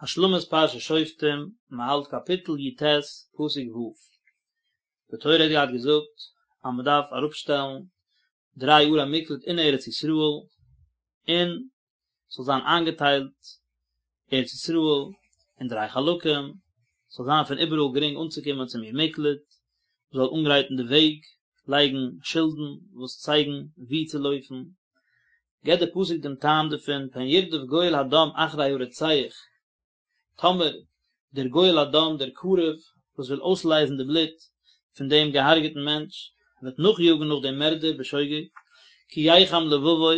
השלמת פרשת שופטים, מען האלט קאפיטל י ט, פסוק ו'. די תורה האט געהאט געזאגט אז מען דארף אראפשטעלן דריי ערי מקלט אין ארץ ישראל, און ס'זאל זיין איינגעטיילט ארץ ישראל אין דריי חלקים, ס'זאל זיין פון איבעראל גרינג אנצוקומען צום עיר מקלט, מען זאל אנגרייטן די וועג, לייגן שילדן וואס צייגן וואו צו לויפן, געבט דער פסוק דעם טעם דערפון, פן ירדוף גואל הדם אחרי הרוצח, טאמער דער גואל הדם, דער קרוב וואס וויל אויסלייזן די בלוט פון דעם געהארגעטן מענטש, וועט נאכיאגן נאך דעם מערדער בשוגג, כי יחם לבבו,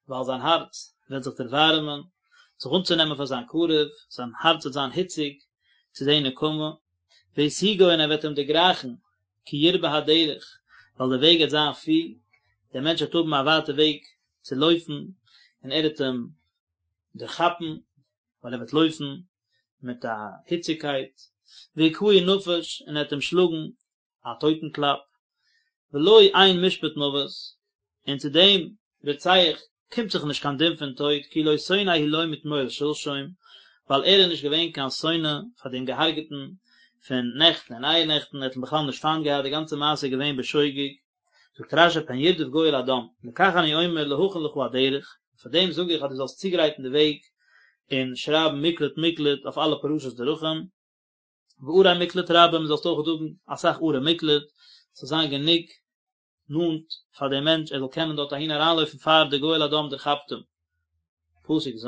ווייל זיין הארץ וועט זיך דערווארעמען, זיך אנצונעמען פאר זיין קרוב, זיין הארץ וועט זיין היציג צו די נקמה, והשיגו און ער וועט אים דערגרייכן, כי ירבה הדרך, ווייל די וועג וועט זיין פיל, דער מענטש וועט האבן א ווייטע וועג צו לויפן, און ער וועט אים דערכאפן, ווייל ער וועט לויפן מיט א היציגקייט, והכהו נפש, און ער וועט אים שלאגן א טויטן קלאפ, ולו אין משפט מוות, און צו דעם רוצח קומט זיך נישט קיין דין פון טויט, כי לא שונא הוא לו מתמול שלשום, ווייל ער איז נישט געווען קיין שונא פאר דעם געהארגעטן פון נעכטן און אייערנעכטן, ער האט אים בכלל נישט פיינט געהאט, די גאנצע מעשה איז געווען בשוגג. זאגט רשי פן ירדוף גואל הדם, לכך אני אומר להכין לך הדרך, פאר דעם זאג איך אז דו זאלסט צוגרייטן די וועג און שרייבן מקלט מקלט אויף אלע פרשות דרכים, וערי מקלט רבים, זאלסט אויך האבן אסאך ערי מקלט, ס'זאל זיין גענוג נאנט פאר דעם מענטש ער זאל קענען דארט אהין אריינלויפן פאר דער גואל הדם דערכאפט אים. פסוק ז',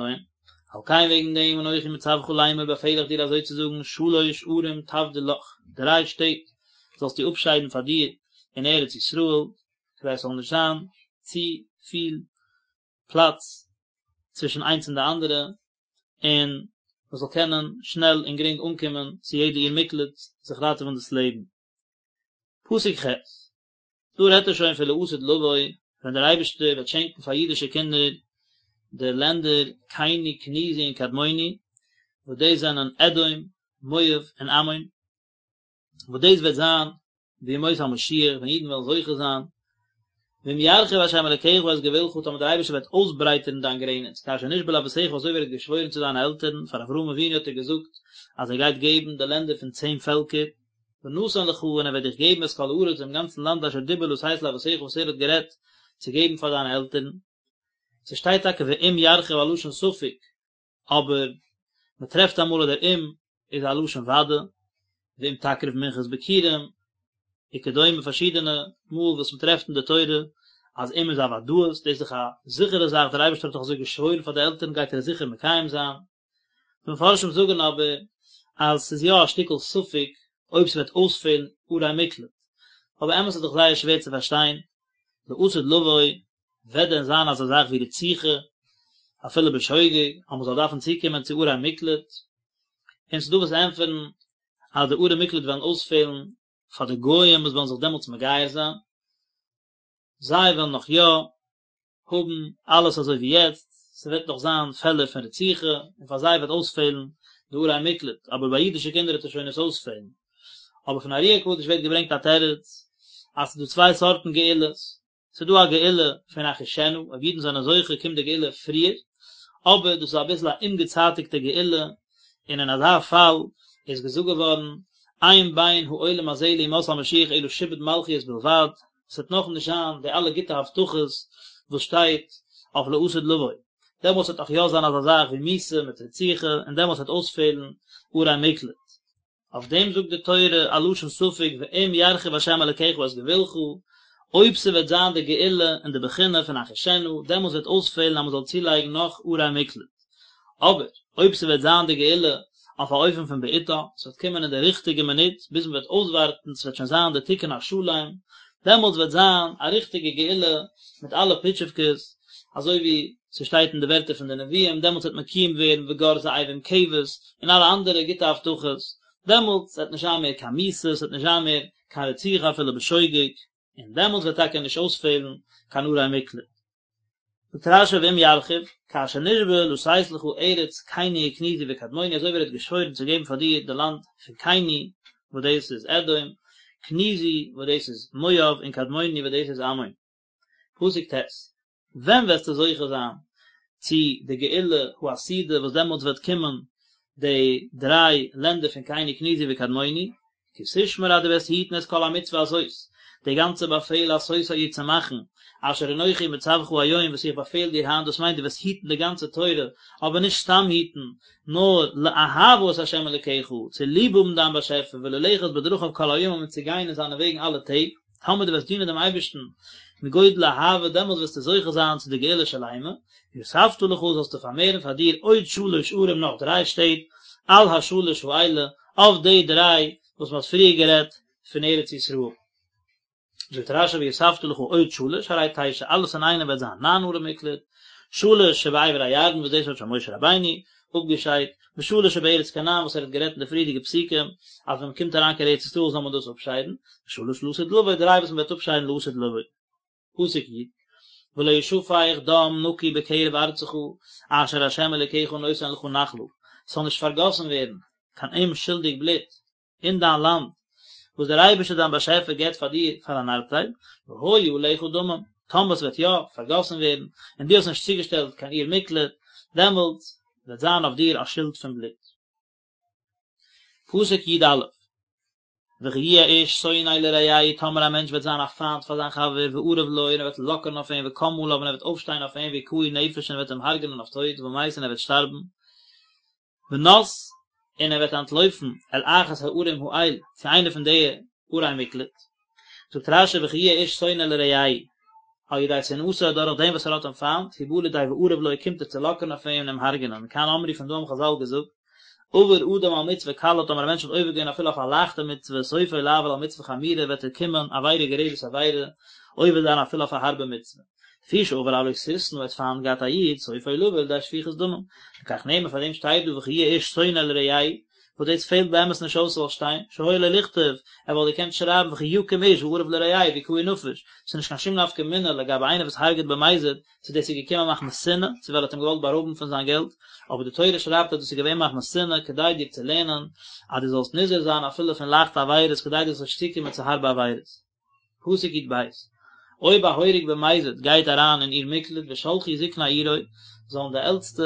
על כן וועגן דעם אנכי מצוך לאמר באפעל איך דיר אזוי צו זאגן שלש ערים תבדיל לך, דריי שטעט זאלסטו אפשיידן פאר דיר אין ארץ ישראל, כדי עס זאל נישט זיין צו פיל פלאץ צווישן איינס און די אנדערע, און מען זאל קענען שנעל און גרינג אנקומען צו יעדע עיר מקלט זיך ראטעווען דאס לעבן. פסוק ח', דא רעדט ער שוין פון לעתיד לבוא, ווען דער אייבערשטער וועט שענקן פאר אידישע קינדער די לענדער קיני, קניזי און קדמוני, וואס דאס זענען אדום, מואב און עמון, וואס דאס וועט זיין בימות המשיח ווען אידן וועלן זוכה זיין, ואם ירחיב ה' אלקיך את גבולך, טאמער דער אייבערשטער וועט אויסברייטערן דיין גרעניץ, כאשר נשבע לאבותיך אזוי ווי ער האט געשוואוירן צו דיינע עלטערן, פאר אברהם אבינו האט ער געזאגט אז ער גייט געבן די לענדער פון צען פעלקער, ונתן לך און ער וועט דיך געבן את כל הארץ דעם גאנצן לאנד אשר דיבר לתת לאבותיך וואס ער האט גערעדט צו געבן פאר דיינע עלטערן. ס'שטייט טאקע ואם ירחיב א לשון ספק, אבער מען טרעפט אמאל אז דער אם איז א לשון ודאי, ואם תקריב מנחת ביכורים, וכדומה פארשידענע מאל וואס מען טרעפט אין די תורה אז אם איז א ודאות, דאס איז דאך א זיכערע זאך, דער אייבערשטער האט דאך אזוי געשוואוירן פאר די עלטערן גייט ער עס זיכער מקיים זיין. די מפרשים זאגן אבער אז ס'איז יא א שטיקל ספק אויב ס'וועט אויספעלן ערי מקלט, אבער אמת איז דאך זייער שווער צו פארשטיין, לעתיד לבוא וועט דען זיין אזא זאך ווי רציחה אפילו בשוגג אז מ'זאל דארפן צוקומען צו ערי מקלט? און ס'דא וואס ענטפערן אז די ערי מקלט וועלן אויספעלן פאר די גויים וואס וועלן זיך דעמאלטס מגייר זיין, זיי וועלן נאך יא האבן אלעס אזוי ווי יעצט, ס'וועט נאך זיין פעלער פון רציחה, און פאר זיי וועט אויספעלן די ערי מקלט, אבער ביי אידישע קינדער וועט עס שוין נישט אויספעלן. אבער פון ארי הקדוש ווערט געברענגט א תירוץ, אז ס'איז דא צוויי סארטן גאולות, ס'איז דא א גאולה פון אחישנה, אויב אידן זענען זוכה קומט די גאולה פריער, אבער דאס איז אביסל א אומגעצייטיגטע גאולה, און אין אזא פאל איז געזאגט געווארן, אין בין העולם הזה לימות המשיח אלא שעבוד מלכיות בלבד, ס'וועט נאך נישט זיין די אלע גוטע הבטחות וואס שטייט אויף לעתיד לבוא, דעמאלטס וועט נאך יא זיין אזא זאך ווי מיתה מיט רציחה, און דעמאלטס וועט אויספעלן ערי מקלט. אויף דעם זאגט די תורה א לשון ספק ואם ירחיב ה' אלקיך את גבולך, אויב ס'וועט זיין די גאולה אין די בחינה פון אחישנה, דעמאלטס וועט אויספעלן אז מ'זאל צולייגן נאך ערי מקלט. אבער אויב ס'וועט זיין די גאולה אויף א אופן פון בעתה, ס'וועט קומען אין די ריכטיגע מינוט, ביז מ'וועט אויסווארטן, ס'וועט שוין זיין די תיקון השלם, דעמאלטס וועט זיין א ריכטיגע גאולה מיט אלע פיטשעווקעס, אזוי ווי ס'שטייט אין די ווערטער פון די נביאים, דעמאלטס וועט מקוים ווערן וגר זאב עם כבש, און אלע אנדערע גוטע הבטחות, דעמאלטס וועט נישט זיין מער קיין מיתה, ס'וועט נישט זיין מער קיין רציחה אפילו בשוגג, און דעמאלטס וועט טאקע נישט אויספעלן קיין ערי מקלט. זאגט רשי ואם ירחיב, כאשר נשבע לתת לך ארץ קיני וקניזי וקדמוני אזוי ווי ער האט געשוואוירן צו געבן פאר דיר די לאנד פון קיני וואס דאס איז אדום, קניזי וואס דאס איז מואב און קדמוני וואס דאס איז עמון. פסוק ט', ווען וועסטו זוכה זיין צו די גאולה העתידה וואס דעמאלטס וועט קומען. די דריי לענדער פון קיני קניזי וקדמוני, כי תשמור אז דו וועסט היטן את כל המצוה הזאת, די גאנצע באפעל לעשותה איר צו מאכן, אשר אנכי מצווך היום וואס איך באפעל דיר היינט, דאס מיינט דו וועסט היטן די גאנצע תורה, אבער נישט סתם היטן, נאר לאהבה את ה' אלוקיך, צו ליב האבן דיין באשעפער, וללכת בדרכיו כל הימים און צו גיין אין זיינע וועגן אלע טעג, טאמער דו וועסט דינען דעם אייבערשטן מגודל אהבה, דעמאלס וועסטו זוכה זיין צו די גאולה שלימה, ויספת לך זאלסטו פארמערן פאר דיר עוד שלש ערים נאך דריי שטעט, על השלש האלה, אויף די דריי וואס מען האט פריער גערעדט פון ארץ ישראל. זאגט רשי ויספת לך עוד שלש הרי תשע, אלעס אינאיינעם וועט זיין ניין ערי מקלט, שלש שבעבר הירדן וואס דאס האט שוין משה רבינו אפגעשיידט, ושלש שבארץ כנען וואס ער האט גערעדט אין די פריערדיגע פסוקים אז ווען מען קומט אריין קיין ארץ ישראל זאל מען דאס אפשיידן, ושלש לעתיד לבוא, דריי וואס מען וועט אפשיידן לעתיד לבוא. פסוק י, ולא ישפך דם נקי בקרב ארצך אשר ה' אלוקיך נותן לך נחלה, ס'זאל נישט פארגאסן ווערן קיין אומשולדיג בלוט אין דיין לאנד וואס דער אייבערשטער דיין באשעפער געבט פאר דיר פאר אן ארבטייל, והיה עליך דמים, טאמער עס וועט יא פארגאסן ווערן און דו האסט נישט צוגעשטעלט קיין עיר מקלט, דעמאלטס וועט זיין אויף דיר א שולד פון בלוט. פסוק י א, וכי יהיה איש שונא לרעהו, טאמער א מענטש וועט זיין א פיינט פאר זיין חבר, וארב לו, און ער וועט לאקערן אויף אים, וקם עליו, און ער וועט אויפשטיין אויף אים, והכהו נפש, און ער וועט אים הרג'נען אויף טויט, ומת, און ער וועט שטארבן, ונס, און ער וועט אנטלויפן, אל אחת הערים האל, צו איינע פון די ערי מקלט. זאגט רשי וכי יהיה איש שונא לרעהו, על ידי שנאתו דורך דעם וואס ער האט אים פיינט, הוא בא לידי וארב לו קומט ער צו לאקערן אויף אים און אים הרג'נען, מכאן אמרו פון דא האבן חזל געזאגט, עבר אדם על מצוה קלה טאמער א מענטש האט עובר געווען אפילו אויף א לייכטע מצוה סופו לעבור על מצוה חמורה וועט ער קומען עבירה גוררת עבירה עובר זיין אפילו אויף א הארבע מצוה. לפי שעבר על לא תשנא האט פיינט געהאט א איד סופו לבא לידי שפיכות דמים. לכך נאמר פאר דעם שטייט דא וכי יהיה איש שונא לרעהו וואס דאס פעלט באמת נישט אויס ס'זאל שטיין, שהיה לו לכתוב, ער וואלט געקענט שרייבן וכי יקום איש וארב לרעהו והכהו נפש, ס'איז נישט קיין שום נפקא מינה לגבי איינער וואס הרג'עט במזיד, צו דאס איז געקומען מחמת שנאה, צו ווייל ער האט אים געוואלט בארויבן פון זיין געלט, אבער די תורה שרייבט אז דאס איז געווען מחמת שנאה כדי דיר צו לערנען אז דו זאלסט נזהר זיין אפילו פון לייכטע עבירות כדי דו זאלסט נישט צוקומען צו הארבע עבירות. פסוק י ב, אויב א הורג במזיד גייט אריין אין עיר מקלט ושלחו זקני עירו, זאלן די עלטסטע,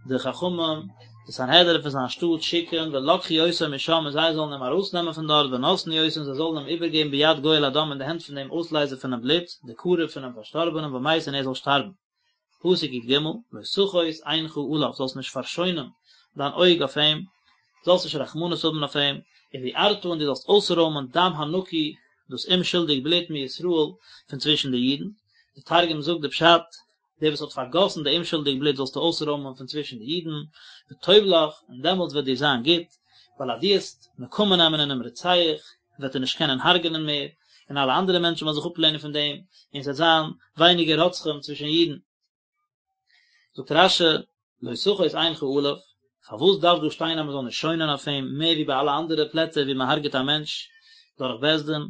די חכמים, די סנהדרין פון זיין שטאט שיקן, ולקחו אותו משם און זיי זאלן אים ארויסנעמען פון דארט, ונתנו אותו און זיי זאלן אים איבערגעבן ביד גואל הדם אין די הענט פון דעם אויסלייזער פונעם בלוט, די קרוב פונעם פארשטארבענעם ומת און ער זאל שטארבן. פסוק י ג, לא תחוס עינך עליו, זאלסט נישט פארשוינען דיין אויג אויף אים, זאלסט נישט רחמנות האבן אויף אים, ובערת און דו זאלסט אויסרוימען דם הנקי, דאס אומשולדיג בלוט מישראל, פון צווישן די אידן. די תרגום זאגט די פשט, דער וואס האט פארגאסן די אומשולדיג בלוט זאלסטו אויסרוימען פון צווישן די אידן, וטוב לך, און דעמאלטס וועט דיר זיין גוט, ווייל אז דו וועסט נקמה נעמען אינעם רוצח, וועט ער נישט קענען הרג'נען מער, און אלע אנדערע מענטשן וועלן זיך אפלערנען פון דעם, און עס וועט זיין ווייניגער רוצחים צווישן אידן. זאגט רשי, לא תחוס עינך עליו, פארוואס דארף דא שטיין אז מען זאל נישט שוינען אויף אים מער ווי ביי אלע אנדערע פלעצער ווי מען הרג'עט א מענטש דורך בית דין?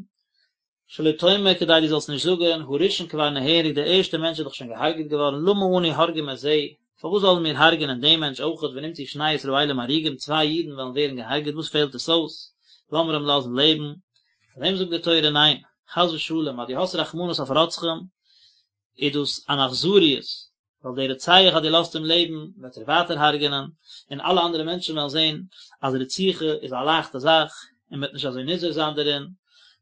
שלא תאמר כדי דו זאלסט נישט זאגן, הראשון כבר נהרג, דער ערשטער מענטש איז דאך שוין געהארגעט געווארן, למה אנו הורגים את זה, פארוואס זאלן מיר הרג'ענען דעם מענטש אויכעט, ונמצאו שני ישראלים הרוגים, צוויי אידן וועלן ווערן געהארגעט, וואס פעלט עס אויס, לאמיר אים לאזן לעבן, פאר דעם זאגט די תורה ניין, חס ושלום, אז דו האסט רחמנות אויף רוצחים, איז דאס אן אכזריות, ווייל דער רוצח אז דו לאזט אים לעבן וועט ער ווייטער הרג'ענען, און אלע אנדערע מענטשן וועלן זען אז רציחה איז א לייכטע זאך, און מען וועט נישט אזוי נזהר זיין דערין,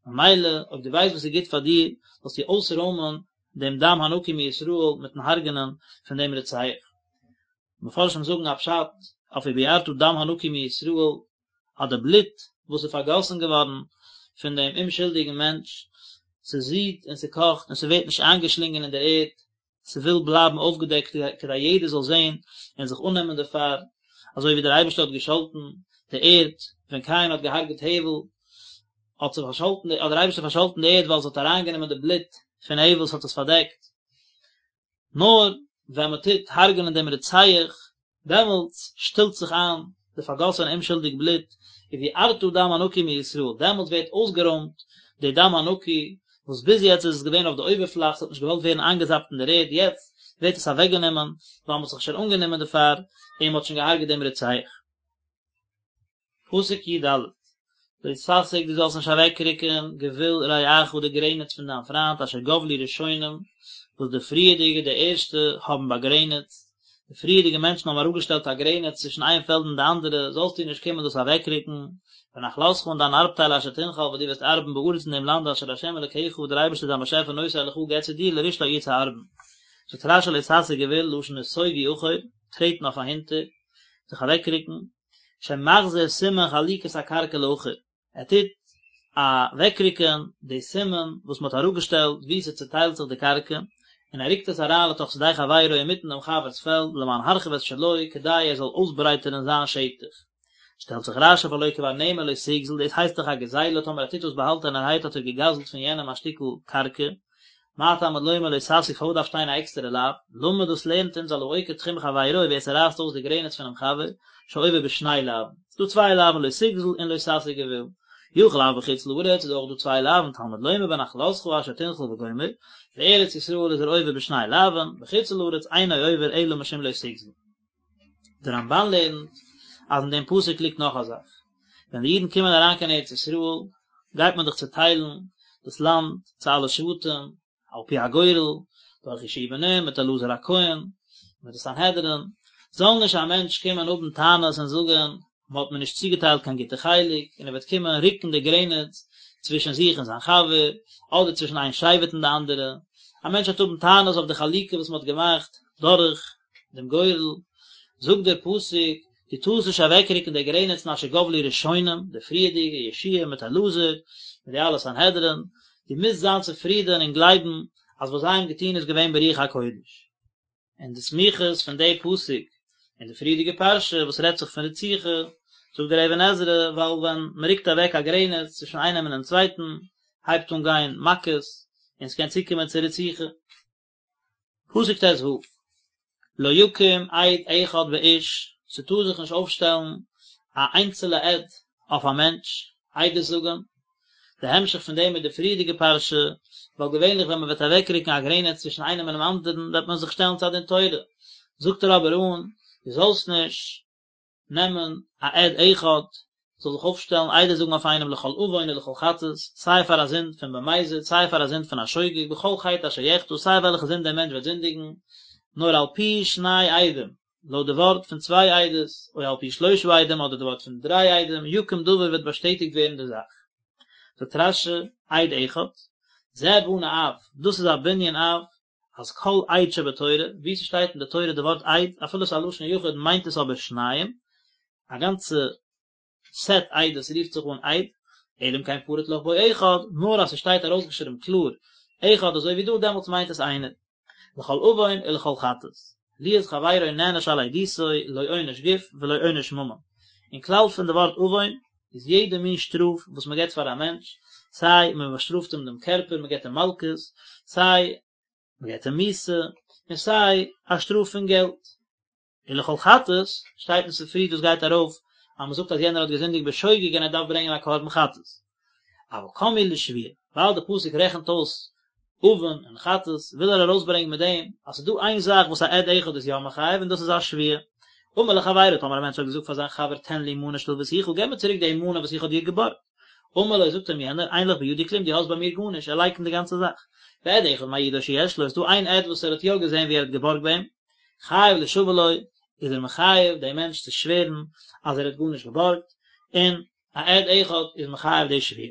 ממילא אויב דו ווייסט וואס איז גוט פאר דיר, זאלסטו אויסרוימען דעם דם הנקי מישראל מיטן הרג'ענען פון דעם רוצח. מפרשים זאגן א פשט אויף ובערת דם הנקי מישראל, אז די בלוט וואס איז פארגאסן געווארן פון דעם אומשולדיגן מענטש, ס'זידט און ס'קאכט און ס'ווערט נישט איינגעשלינגען אין דער ערד, ס'וויל בלייבן אויפגעדעקט כדי יעדער זאל זען און זיך אננעמען דערפאר, אזוי ווי דער אייבערשטער האט געשאלטן די ערד ווען קין האט געהארגעט הבל, האט זיך פארשאלטן, האט דער אייבערשטער פארשאלטן די ערד ווייל עס האט אריינגענומען די בלוט פון הבל, ס'האט עס פארדעקט. נאר ווען מען טוט הרג'נען דעם רוצח, דעמאלטס שטילט זיך איין די פארגאסענע אומשולדיג בלוט, ובערת דם הנקי מישראל, דעמאלטס ווערט אויסגערוימט די דם הנקי, וואס ביז יעצט איז עס געווען אויף די אויבערפלאך, ס'האט נישט געוואלט ווערן איינגעזאפט אין דער ערד, יעצט ווערט עס אוועקגענומען, ווייל מ'האט זיך שוין אנגענומען דערפאר, און מ'האט שוין געהארגעט דעם רוצח. פסוק י ד, לא תסיג דו זאלסט נישט אוועקרוקן גבול רעך די גרעניץ פון דיין פריינט אשר גבלו ראשונים וואס די פריערדיגע די ערשטע האבן באגרעניצט. די פריערדיגע מענטשן האבן אראפגעשטעלט א גרעניץ צווישן איין פעלד און די אנדערע, זאלסטו נישט קומען דאס אוועקרוקן, ונחלתך און דיין ארבטייל אשר תנחל וואס דו וועסט ארבן בארץ אין דעם לאנד אשר ה' אלקיך וואס דער אייבערשטער דיין באשעפער נותן לך געבט צו דיר לרשתה איר צו ארבן. זאגט רש"י לא תסיג גבול, לשון נסוגו אחור, טרעטן אויף אהינטער, זיך אוועקרוקן, שמחזיר סימן חלוקת הקרקע לאחור. ער טוט אוועקרוקען די סימן וואס מען האט אראפגעשטעלט וואו ס'צוטיילט זיך די קרקע, און ער רוקט עס אריין לתוך שדה חברו אינמיטן דעם חבר'ס פעלד למען הרחיב את שלו כדי ער זאל אויסברייטערן זיין שטח. שטעלט זיך רש"י והלא כבר נאמר לא תגזול, דאס הייסט דאך א גזילה, טאמער ער טוט דאס באהאלטענערהייט האט ער געגזלט פון יענעם א שטיקל קרקע, מה תלמוד לומר לא תסיג פארוואס דארף שטיין א עקסטערע לאו? למד דאס לערנט אונז על העוקר תחום חברו ווער ס'רייסט אויס די גרעניץ פונעם חבר, שעובר בשני לאווין. ס'דא צוויי לאווין לא תגזול און לא תסיג גבול. יכול אף בחוץ לארץ איז אויך דא צוויי לאווין תלמוד לומר בנחלתך אשר תנחל וגומר, בארץ ישראל איז ער עובר בשני לאווין, בחוץ לארץ אינו עובר אלא משום לא תגזול. דער רמב"ן לערנט אז אין דעם פסוק ליגט נאך א זאך, ווען די אידן קומען אריין קיין ארץ ישראל גייט מען דאך צוטיילן דאס לאנד צו אלע שבטים על פי הגורל, דורך יהושע בן נון מיט אלעזר הכהן מיט די סנהדרין, זאל נישט א מענטש קומען האבן טענות און זאגן מען האט מיר נישט צוגעטיילט קיין גוטע חלק, און ער וועט קומען רוקן די גרעניץ צווישן זיך און זיין חבר, אדער צווישן איין שבט און די אנדערע, א מענטש וועט האבן טענות אויף די חלוקה וואס מען האט געמאכט דורך דעם גורל, זאגט דער פסוק, דו טארסט נישט אוועקרוקן די גרעניצן אשר גבלו ראשונים, די פריערדיגע, יהושע מיט אלעזר, מיט די אלע סנהדרין, דו מוזט זיין צופרידען און גלייבן אז וואס זיי האבן געטון איז געווען ברוח הקודש. און די סמיכות פון די פסוק און די פריערדיגע פרשה וואס רעדט זיך פון רציחה, זאגט דער אבן עזרא, ווייל ווען מען רוקט אוועק א גרעניץ צווישן איינעם און דעם צווייטן, הייבט אן גיין מכות, און ס'קען צוקומען צו רציחה. פסוק ט"ו, לא יקום עד אחד באיש, ס'טאר זיך נישט אויפשטעלן א איינצעלע עד אויף א מענטש, עדות זאגן, די המשך פון דעם איז די פריערדיגע פרשה, ווייל געווענליך ווען מען וועט אוועקרוקן א גרעניץ צווישן איינעם און דעם אנדערן וועט מען זיך שטעלן צו א דין תורה, זאגט ער אבער אן, דו זאלסט נישט נעמען א עד אחד זאל זיך אויפשטעלן עדות זאגן אויף איינעם לכל עוון ולכל חטאת, סיי פאר א זינד פון במזיד סיי פאר א זינד פון א שוגג, בכל חטא אשר יחטא, סיי וועלכע זינד דער מענטש וועט זינדיגן, נאר על פי שני עדים, לויט די ווארט פון צוויי עדות, או על פי שלושה עדים אדער די ווארט פון דריי עדים, יקום דבר וועט באשטעטיגט ווערן די זאך. זאגט רש"י, עד אחד, זה בנה אב, דאס איז א בנין אב, אז כל עד שבתורה, וואו ס'שטייט אין די תורה די ווארט עד, אפילו ס'איז א לשון יחיד מיינט עס אבער שניים, א גאנצע סעט עדות רופט זיך אן עד, אלא אם כן פרט לך בו אחד, נאר אז ס'שטייט ארויסגעשריבן קלאר אחד אזוי ווי דא דעמאלטס מיינט עס איינער. לכל עוון ולכל חטאת. להיות חברו נענש על עדותו לא עונש גוף ולא עונש ממון. אין כלל פון די ווארט עוון איז יעדע מין שטראף וואס מען געבט פאר א מענטש, סיי מען באשטראפט אים דעם קערפער, מען געבט אים מלקות, סיי מען געבט אים מיתה, און סיי א שטראף פון געלט. ולכל חטאת, שטייט אין ספרי דאס גייט ארויף אז מען זאגט אז יענער האט געזינדיגט בשוגג און ער דארף ברענגען א קרבן חטאת. אבל קם להו לשבועה, ווייל די פסוק רעכנט אויס עוון און חטאת, וויל ער ארויסברענגען מיט דעם אז ס'איז דא איין זאך וואס א עד אחד איז יא מחייב און דאס איז א שבועה. אמר לחבירו, טאמער א מענטש האט געזאגט פאר זיין חבר תן לי מנה שהלויתיך, געב מיר צוריק די מנה וואס איך האב דיר געבארגט. אמר לו, זאגט אים יענער, אין לך בידי כלום, דו האסט ביי מיר גארנישט, ער לייקנט די גאנצע זאך. ועד אחד מעידו שיש לו, איז דא איין עד וואס ער האט יא געזען ווי ער האט געבארגט ביי אים, חייב לישבע לו, איז ער מחייב דעם מענטש צו שווערן אז ער האט גארנישט געבארגט, און א עד אחד איז מחייב די שבועה.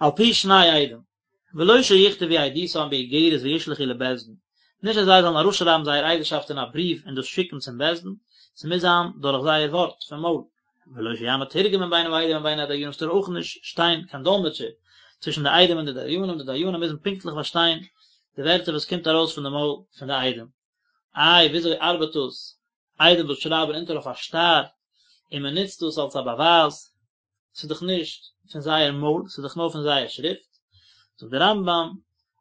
על פי שני עדים, ולא שיכתבו עדותם באיגרת וישלחו לבית דין, נישט אז זיי זאלן אראפשרייבן זייער עדות'שאפט אין א בריוו און דאס שיקן צום בית דין, ס'מוז זיין דורך זייער ווארט פון מויל. ולא שיעמוד תורגמן בין העדים ובין הדיינים, ס'טאר אויך נישט שטיין קיין דאלמעטשער צווישן די עדים און די דיינים, די דיינים מוזן פונקטליך פארשטיין די ווערטער וואס קומט ארויס פון די מויל פון די עדים. איי וויאזוי ארבעט דאס? עדים וואס שרייבן אונטער אויף א שטר און מען נוצט דאס אלס א באווייז, ס'איז דאך נישט פון זייער מויל, ס'איז דאך נאר פון זייער שריפט. זאגט דער רמב"ם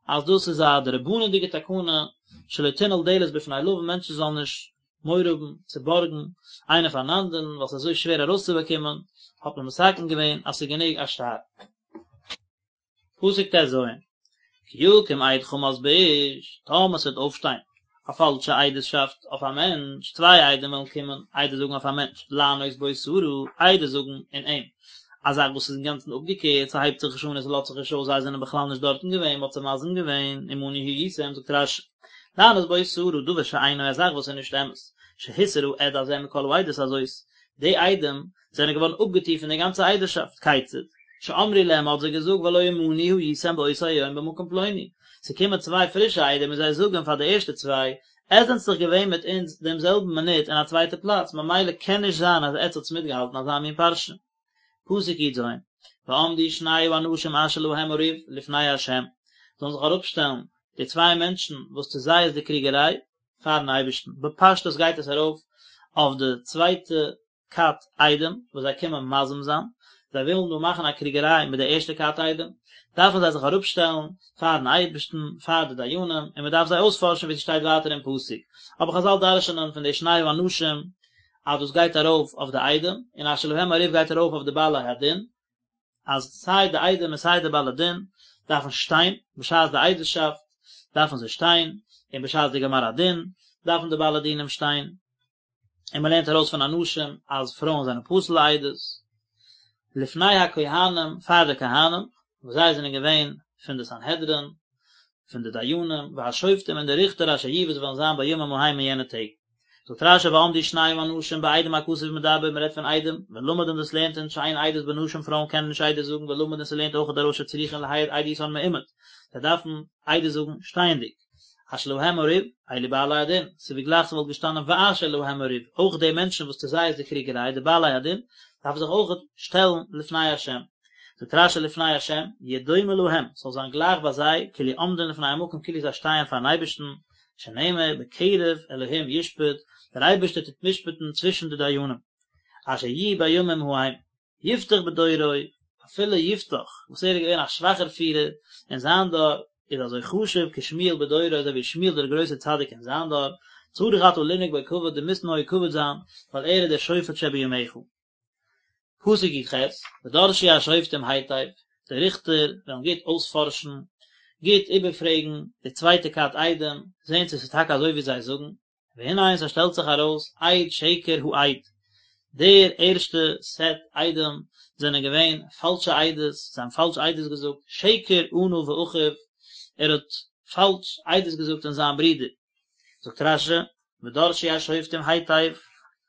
אז דאס איז א דרבנן'דיגע תקנה, שלא תנעול דלת בפני לווין, מענטשן זאלן נישט מורא האבן צו בארגן איינער פארן אנדערן, ווייל ס'איז אזוי שווער ארויסצובאקומען, האט מען מתקן געווען אז ס'איז גענוג א שטר. פסוק ט"ז, כי יקום עד חמס באיש, טאמער ס'וועט אויפשטיין א פאלשע עדות'שאפט אויף א מענטש, צוויי עדים וועלן קומען עדות זאגן אויף א מענטש, לענות בו סרה, עדות זאגן אין אים, א זאך וואס איז אינגאנצן אפגעקערט, ס'הייבט זיך נישט אן און ס'לאזט זיך נישט אויס, זיי זענען בכלל נישט דארטן געווען, מ'האט זיי מזים געווען, עמנו הייתם, זאגט רש"י. לענות בו סרה דבר שאינו א זאך וואס איז נישט אמת, שהוסר העד הזה מכל העדות הזאת, די עדים זענען געווארן אפגעטון פון די גאנצע עדות'שאפט, כיצד? שאמרו להם מ'האט זיי געזאגט והלא עמנו הייתם באותו היום במקום פלוני, ס'קומען צוויי פרישע עדים און זיי זאגן פאר די ערשטע צוויי, עטס זענטס דאך געווען מיט אונז דעם זעלבן מינוט אין א צווייטע פלאץ ממילא קען נישט זיין אז עטס האטס מיטגעהאלטן אזא מין פרשה. פסוק י"ז, ועמדו שני האנשים אשר להם הריב לפני ה', זאלן זיך אראפשטעלן די צוויי מענטשן וואס צו זיי איז די קריגעריי, פארן אייבערשטן, בפשטות גייט עס ארויף אויף די צווייטע כת עדים וואס זיי קומען מזים זיין, זיי ווילן דא מאכן א קריגעריי מיט די ערשטע כת עדים, דארפן זיי זיך אראפשטעלן פארן אייבערשטן, פאר די דיינים, און מען דארף זיי אויספארשן ווי ס'שטייט ווייטער אין פסוק, אבער חזל דרש'נען פון די שני האנשים אז דאס גייט ארויף אויף די עדים, און אשר להם הריב גייט ארויף אויף די בעלי הדין, אז סיי די עדים און סיי די בעלי דין דארפן שטיין, בשעת די עדות'שאפט דארפן זיי שטיין, און בשעת די גמר הדין דארפן די בעלי דינים שטיין, און מען לערנט ארויס פון אנשים אז פרויען זענען פסול לעדות, לפני הכהנים פאר די כהנים, וואס זיי זענען געווען פון די סנהדרין, פון די דיינים, והשופטים און די ריכטער אשר יהיו וואס וועלן זיין בימים ההם אין יענע טעג. זאגט רש"י ועמדו שני האנשים בעדים הכתוב מדבר, מען רעדט פון עדים, ולמד און דאס לערנט אונז שאין עדות בנשים פרויען קענען נישט עדות זאגן ולמד און ס'לערנט אויך ארויס שצריכין להעיד עדותן מעומד, זיי דארפן עדות זאגן שטייענדיג. אשר להם הריב, אלו בעלי הדין, ס'איז ווי גלייך ס'וואלט געשטאנען ואשר להם הריב, אויך די מענטשן וואס צו זיי איז די קריגעריי, די בעלי הדין, דארפן זיך אויך שטעלן לפני השם. זאגט רש"י לפני השם, יהיה דומה להם, ס'זאל זיין גלייך ביי זיי, כאילו עומדין לפני המקום כאילו זיי שטייען פארן אייבערשטן, שנאמר בקרב אלהים ישפט, דער אייבערשטער טוט משפט'ן צווישן די דיינים, אשר יהיו בימים ההם. יפתח בדורו, אפילו יפתח, וואס ער איז געווען א שוואכער פירער אין זיין דור, איז אזוי חשוב כשמואל בדורו אזוי ווי שמואל דער גרויסער צדיק אין זיין דור, צריך אתה לנהוג בו כבוד דו מוזט נוהג כבוד זיין, ווייל ער איז דער שופט שבימיך. פסוק י"ח, ודרשו השופטים היטב, די ריכטער וועלן גוט אויספארשן, גוט איבערפרעגן די צווייטע כת עדים, זען צו עס איז טאקע אזוי ווי זיי זאגן, והנה און ס'שטעלט זיך ארויס עד שקר העד, דער ערשטע סעט עדים זענען געווען פאלשע עדות, זיי האבן פאלש עדות געזאגט, שקר ענה באחיו, ער האט פאלש עדות געזאגט אין זיין ברודער. זאגט רש"י, ודרשו השופטים היטב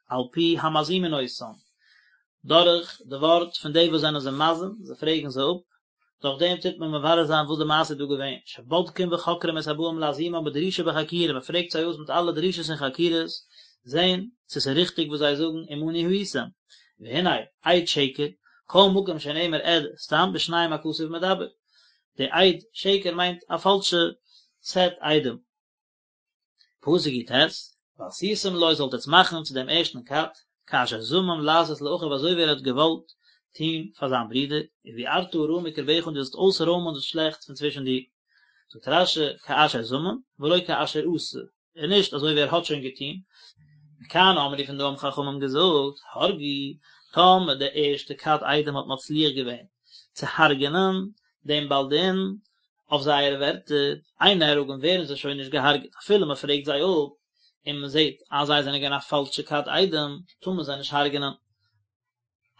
על פי המזימין אותם, דורך די ווארט פון די וואס זענען זיי מזים, זיי פרעגן זיי אפ, דורך דעם טוט מען מברר זיין וואס די מעשה איז דא געווען, שבודקים וחוקרים את הבאים להזימם בדרישה ובחקירה, מען פרעגט זיי אויס מיט אלע דרישות און חקירות, זען צו ס'איז ריכטיג וואס זיי זאגן עמנו הייתם, והנה, עד שקר, כל מקום שנאמר עד סתם בשניים הכתוב מדבר, די עד שקר מיינט א פאלשע סעט עדים. פסוק י"ט, ועשיתם לו זאלט עטס מאכן צו דעם ערשטן כת, כאשר זמם לעשות לאחיו אזוי ווי ער האט געוואלט טון פאר זיין ברודער, וביערת הרע מקרבך און דו זאלסט אויסרוימען דאס שלעכטס פון צווישן דיר. זאגט רש"י, כאשר זמם, ולא כאשר עשה, און נישט אזוי ווי ער האט שוין געטון. מכאן אמרו פון דא האבן חכמים געזאגט, הרגו, טאמער די ערשטע כת עדים האט מצליח געווען צו הרג'ענען דעם בעל דין, אויף זייערע ווערטער, אין נהרגין ווערן זיי שוין נישט געהארגעט אפילו מען פרעגט זיי אפ און מען זעט אז זיי זענען געווען א פאלשע כת עדים, טאר מען זיי נישט הרג'נען.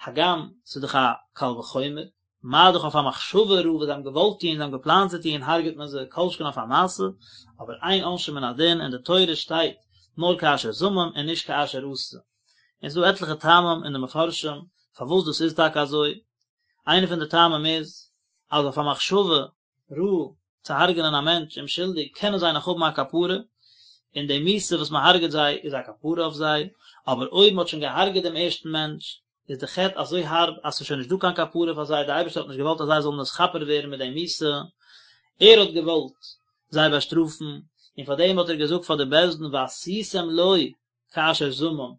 הגם ס'איז דאך א קל וחומר, מה דאך אויף א מחשבה רעה וואס זיי האבן געוואלט טון, זיי האבן געפלאנט צו טון, הרג'עט מען זיי, כל שכן אויף א מעשה, אבער אין עונשין מן הדין, אין די תורה שטייט נאר כאשר זמם און נישט כאשר עשה. און ס'איז דא עטליכע טעמים אין די מפרשים פארוואס דאס איז טאקע אזוי, איינע פון די טעמים איז, אז אויף א מחשבה רעה צו הרג'נען א מענטש אומשולדיג קענען זיי נאך האבן א כפרה, און די מיתה וואס מען הרג'עט זיי איז א כפרה אויף זיי, אבער אויב מען האט שוין געהארגעט דעם ערשטן מענטש, איז די חטא אזוי הארב אז ס'איז שוין נישט דא קיין כפרה פאר זיי, דער אייבערשטער האט נישט געוואלט אז זיי זאלן נתכפר ווערן מיט די מיתה, ער האט געוואלט זיי באשטראפן, און פאר דעם האט ער געזאגט פאר די בית דין ועשיתם לו כאשר זמם,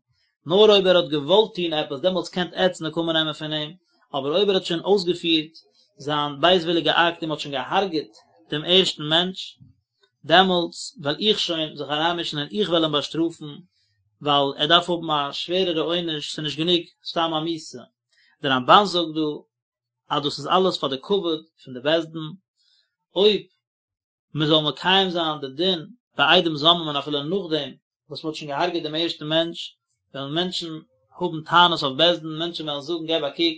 נאר אויב ער האט געוואלט טון עפעס דעמאלטס קענט עטץ נקמה נעמען פון אים, אבער אויב ער האט שוין אויסגעפירט זיין בייזוויליגע אקט און מען האט שוין געהארגעט דעם ערשטן מענטש, דעמאלטס וועל איך שוין זיך אריינמישן און איך וועל אים באשטראפן, ווייל ער דארף האבן א שווערערע עונש, ס'איז נישט גענוג סתם א מיתה. דער רמב"ן זאגט דא אז דאס איז אלעס פאר די כבוד פון די בית דין, אויב מען זאל מקיים זיין די דין ביי עדים זוממין אפילו נאכדעם וואס מען האט שוין געהארגעט דעם ערשטן מענטש, וועלן מענטשן האבן טענות אויף בית דין, מענטשן וועלן זאגן געב א קוק,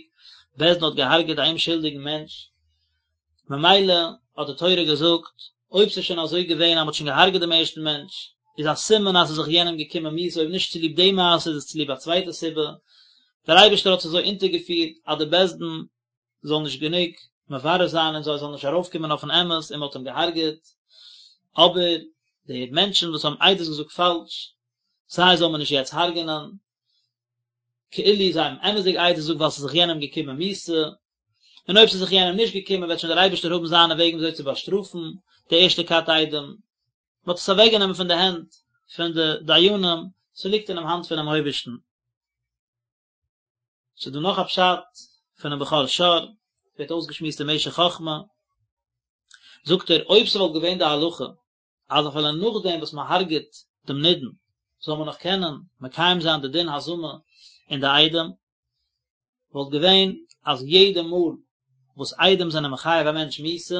בית דין האט געהארגעט א אומשולדיגן מענטש, ממילא האט די תורה געזאגט. אויב ס'איז שוין אזוי געווען אז מ'האט שוין געהארגעט דעם ערשטן מענטש, איז א סימן אז ס'איז זיך יענעם געקומען מיתה, אויב נישט צוליב די מעשה איז עס צוליב א צווייטע סיבה, דער אייבערשטער האט עס אזוי אונטערגעפירט אז די בית דין זאל נישט גענוג מברר זיין און זיי זאלן נישט ארויפקומען אויפן אמת און מ'האט אים געהארגעט, אבער די מענטשן וואס האבן עדות געזאגט פאלש, זיי זאל מען נישט יעצט הרג'נען, כאילו זיי האבן אמת'דיג עדות געזאגט ווייל ס'איז זיך יענעם געקומען מיתה, און אויב ס'איז זיך יענעם נישט געקומען וועט שוין דער אייבערשטער האבן זיינע וועגן וויאזוי צו באשטראפן די ערשטע כת עדים. מ'האט עס אוועקגענומען פון די הענט פון די דיינים, ס'ליגט אינעם האנט פונעם אויבערשטן. ס'איז דא נאך א פשט פונעם בכור שור, ווערט אויסגעשמועסט אין משך חכמה, זאגט ער, אויב ס'וואלט געווען די הלכה אז אפילו נאכדעם וואס מען הרג'עט דעם נידון זאל מען נאך קענען מקיים זיין די דין הזמה אין די עדים, וואלט געווען אז יעדע מאל וואס עדים זענען מחייב א מענטש מיתה,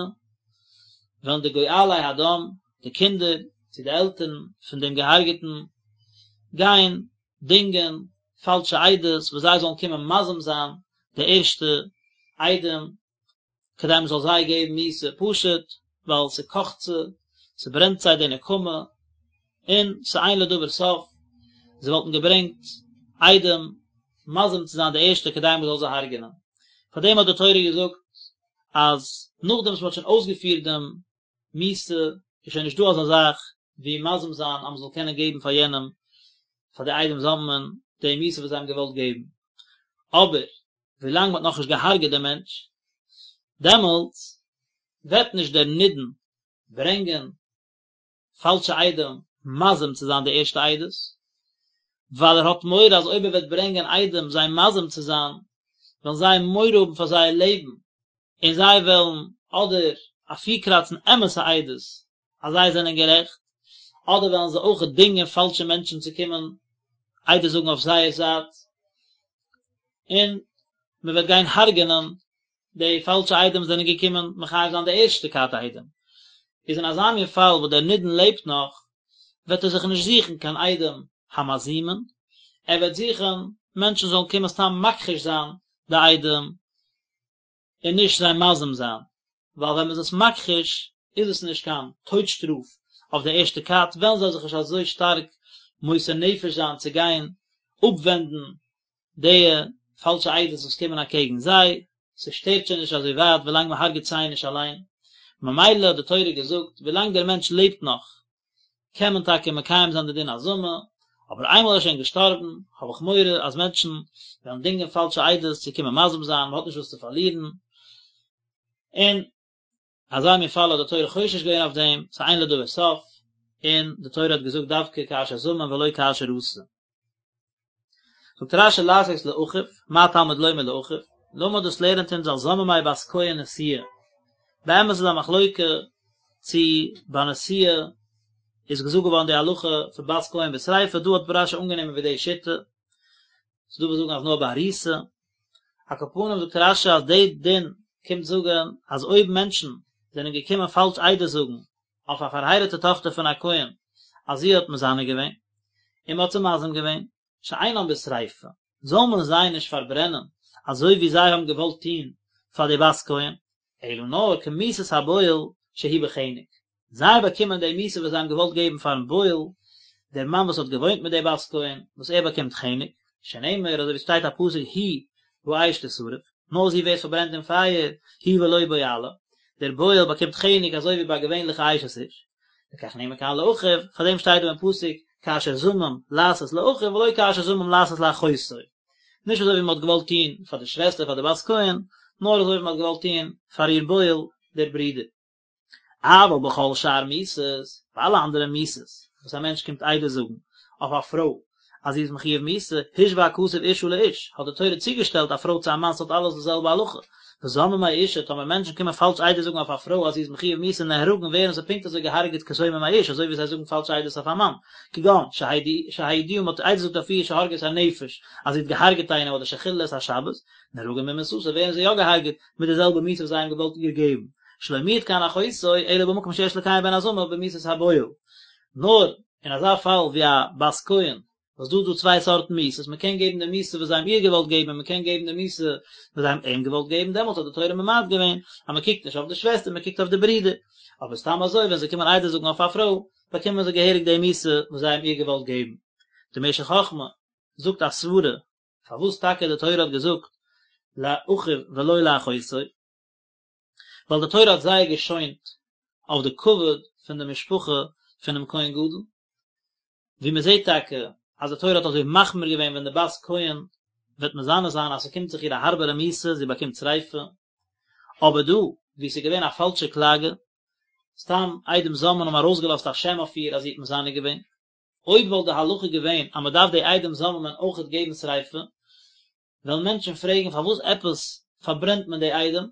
וועלן די גואלי הדם, די קינדער צו די עלטערן פון דעם געהארגעטן, גיין דינגען פאלשע עדות וואס זיי זאלן קומען מזים זיין די ערשטע עדים, כדי מען זאל זיי געבן מיתה, פשוט ווייל ס'קאכט זיי, ס'ברענט זיי די נקמה, און ס'אין לדבר סוף, זיי וואלטן געברענגט עדים מזים צו זיין די ערשטע כדי מען זאל זיי הרג'נען. פאר דעם האט די תורה געזאגט אז נאכדעם וואס מען האט שוין אויסגעפירט דעם מיתה, איז שוין נישטא אזא זאך ווי מזים זיין אז מען זאל קענען געבן פאר יענעם, פאר די עדים זוממין, די מיתה וואס זיי האבן געוואלט געבן. אבער ווילאנג מ'האט נאכנישט געהארגעט דעם מענטש, דעמאלטס וועט נישט דער נידון ברענגען פאלשע עדים מזים צו זיין די ערשטע עדות, ווייל ער האט מורא אז אויב ער וועט ברענגען עדים זיי מזים צו זיין, וועלן זיי מורא האבן פאר זייער לעבן, און זיי וועלן אדער אפירקראצן אמת'ע עדות אז זיי זענען גערעכט, אדער וועלן זיי אויך דינגען פאלשע מענטשן צו קומען עדות זאגן אויף זייער זייט, און מען וועט גיין הרג'נען די פאלשע עדים וואס זענען געקומען מחייב זיין די ערשטע כת עדים. איז אין אזא מין פאל וואס דער נידון לעבט נאך, וועט ער זיך נישט זוכן קיין עדים המזימין, ער וועט זוכן מענטשן זאלן קומען סתם מכחיש זיין די עדים, און נישט זיי מזים זיין, ווייל ווען מען איז עס מכחיש איז עס נישט קיין טויט שטראף אויף די ערשטע כת, וועלן זיי זיך נישט אזוי שטארק מוסר נפש זיין צו גיין אפווענדן די פאלשע עדות וואס קומען אקעגן זיי, ס'שטערט שוין נישט אזוי ווייט ווילאנג מען הרג'ט זיי נישט אליין, ממילא האט די תורה געזאגט ווילאנג דער מענטש לעבט נאך קען מען טאקע מקיים זיין די דין הזמה, אבער איינמאל ער איז שוין געשטארבן, האב איך מורא אז מענטשן וועלן דינגען פאלשע עדות צו קומען מזים זיין, מען האט נישט וואס צו פארלירן, און אזא מין פאל האט די תורה חושש געווען אויף דעם, ס'איז אין לדבר סוף, און די תורה האט געזאגט דווקא כאשר זמם ולא כאשר עשה. זאגט רש"י לעשות לאחיו, מה תלמוד לומר לאחיו, למד דאס לערנט אונז על זוממי בת כהן נשואה, באמת איז א מחלוקה צו ביי נשואה איז געזאגט געווארן די הלכה פון בת כהן בשריפה, דא האט רש"י אנגענומען ווי די שיטה, ס'דא וואס זאגן אז נאר ביי ארוסה, על כל פנים זאגט רש"י אז די דין קומט זאגן אז אויב מענטשן זענען געקומען פאלש עדות זאגן אויף א פארהייראטע טאכטער פון א כהן אז זי האט מזנה געווען, און מען האט זיי מזים געווען, שאינם בשריפה, זאל מען זיי נישט פארברענען אזוי ווי זיי האבן געוואלט טון פאר די בת כהן, אלא נאר כמיתת הבועל שהוא בחנק, זיי באקומען די מיתה וואס זיי האבן געוואלט געבן פארן בועל, דער מאן וואס האט געוואוינט מיט די בת כהן, וואס ער באקומט חנק, שנאמר אזוי ווי ס'שטייט א פסוק היא באש תשרף, נאר זי ווערט פארברענט אין פייער, היא ולא בועלה, דער בועל באקומט חנק אזוי ווי ביי א געווענליכע אשת איש, לכך נאמר כאן לאחיו, פאר דעם שטייט דא אין פסוק כאשר זמם לעשות לאחיו ולא כאשר זמם לעשות לאחותו, נישט אזוי ווי מען האט געוואלט טון פאר די שוועסטער פאר די בת כהן, נאר אזוי ווי מען האט געוואלט טון פאר איר בועל דער ברודער. אבל בכל שאר מיתות, ביי אלע אנדערע מיתות וואס א מענטש קומט עדות זאגן אויף א פרוי אז זי איז מחויב מיתה, השווה הכתוב אשה לאיש, האט די תורה צוגעשטעלט א פרוי צו א מאן ס'האט אלעס די זעלבע הלכה, וזוממי אשה, טאמער מענטשן קומען פאלש עדות זאגן אויף א פרוי אז זי איז מחויב מיתה נהרגין ווערן זיי פונקט אזוי געהארגעט כזוממי איש אזוי ווי זיי זאגן פאלש עדות אויף א מאן, כגון, שהעידוה מ'האט עדות געזאגט אויף איר שהרגה את הנפש אז זי האט געהארגעט איינעם אדער שחיללה את השבת, נהרגין במיתתה ווערן זיי יא געהארגעט מיט די זעלבע מיתה וואס זיי האבן געוואלט איר געבן, שלא מיעט כאן אחותו אלא במקום שיש לקיים בהן הזמה במיתת הבועל. נאר אין אזא פאל ווי א בת כהן. וואס דא איז דא צוויי סארטן מיתות, מען קען געבן די מיתה וואס זיי האבן איר געוואלט געבן און מען קען געבן די מיתה וואס זיי האבן אים געוואלט געבן, דעמאלטס האט די תורה ממעט געווען אז מען קוקט נישט אויף די שוועסטער מען קוקט אויף די ברודער, אבער סתם אזוי ווען זיי קומען עדות זאגן אויף א פרוי באקומען זיי געהעריג די מיתה וואס זיי האבן איר געוואלט געבן. די משך חכמה זאגט א סברה פארוואס טאקע די תורה האט געזאגט לאחיו ולא לאחותו, ווייל די תורה האט זייער געשוינט אויף די כבוד פון די משפחה פונעם כהן גדול, ווי מען זעט טאקע אז די תורה האט אזוי מחמיר געווען ווען די בת כהן וועט מזנה זיין אז ס'קומט זיך איר א הארבערע מיתה, זי באקומט שריפה, אבער דא וואו ס'איז געווען א פאלשע קלאגע, סתם עדים זוממין האבן ארויסגעלאזט א שם אויף איר אז זי האט מזנה געווען, אויב וואלט די הלכה געווען אז מען דארף די עדים זוממין אויכעט געבן שריפה, וועלן מענטשן פרעגן פארוואס עפעס פארברענט מען די עדים,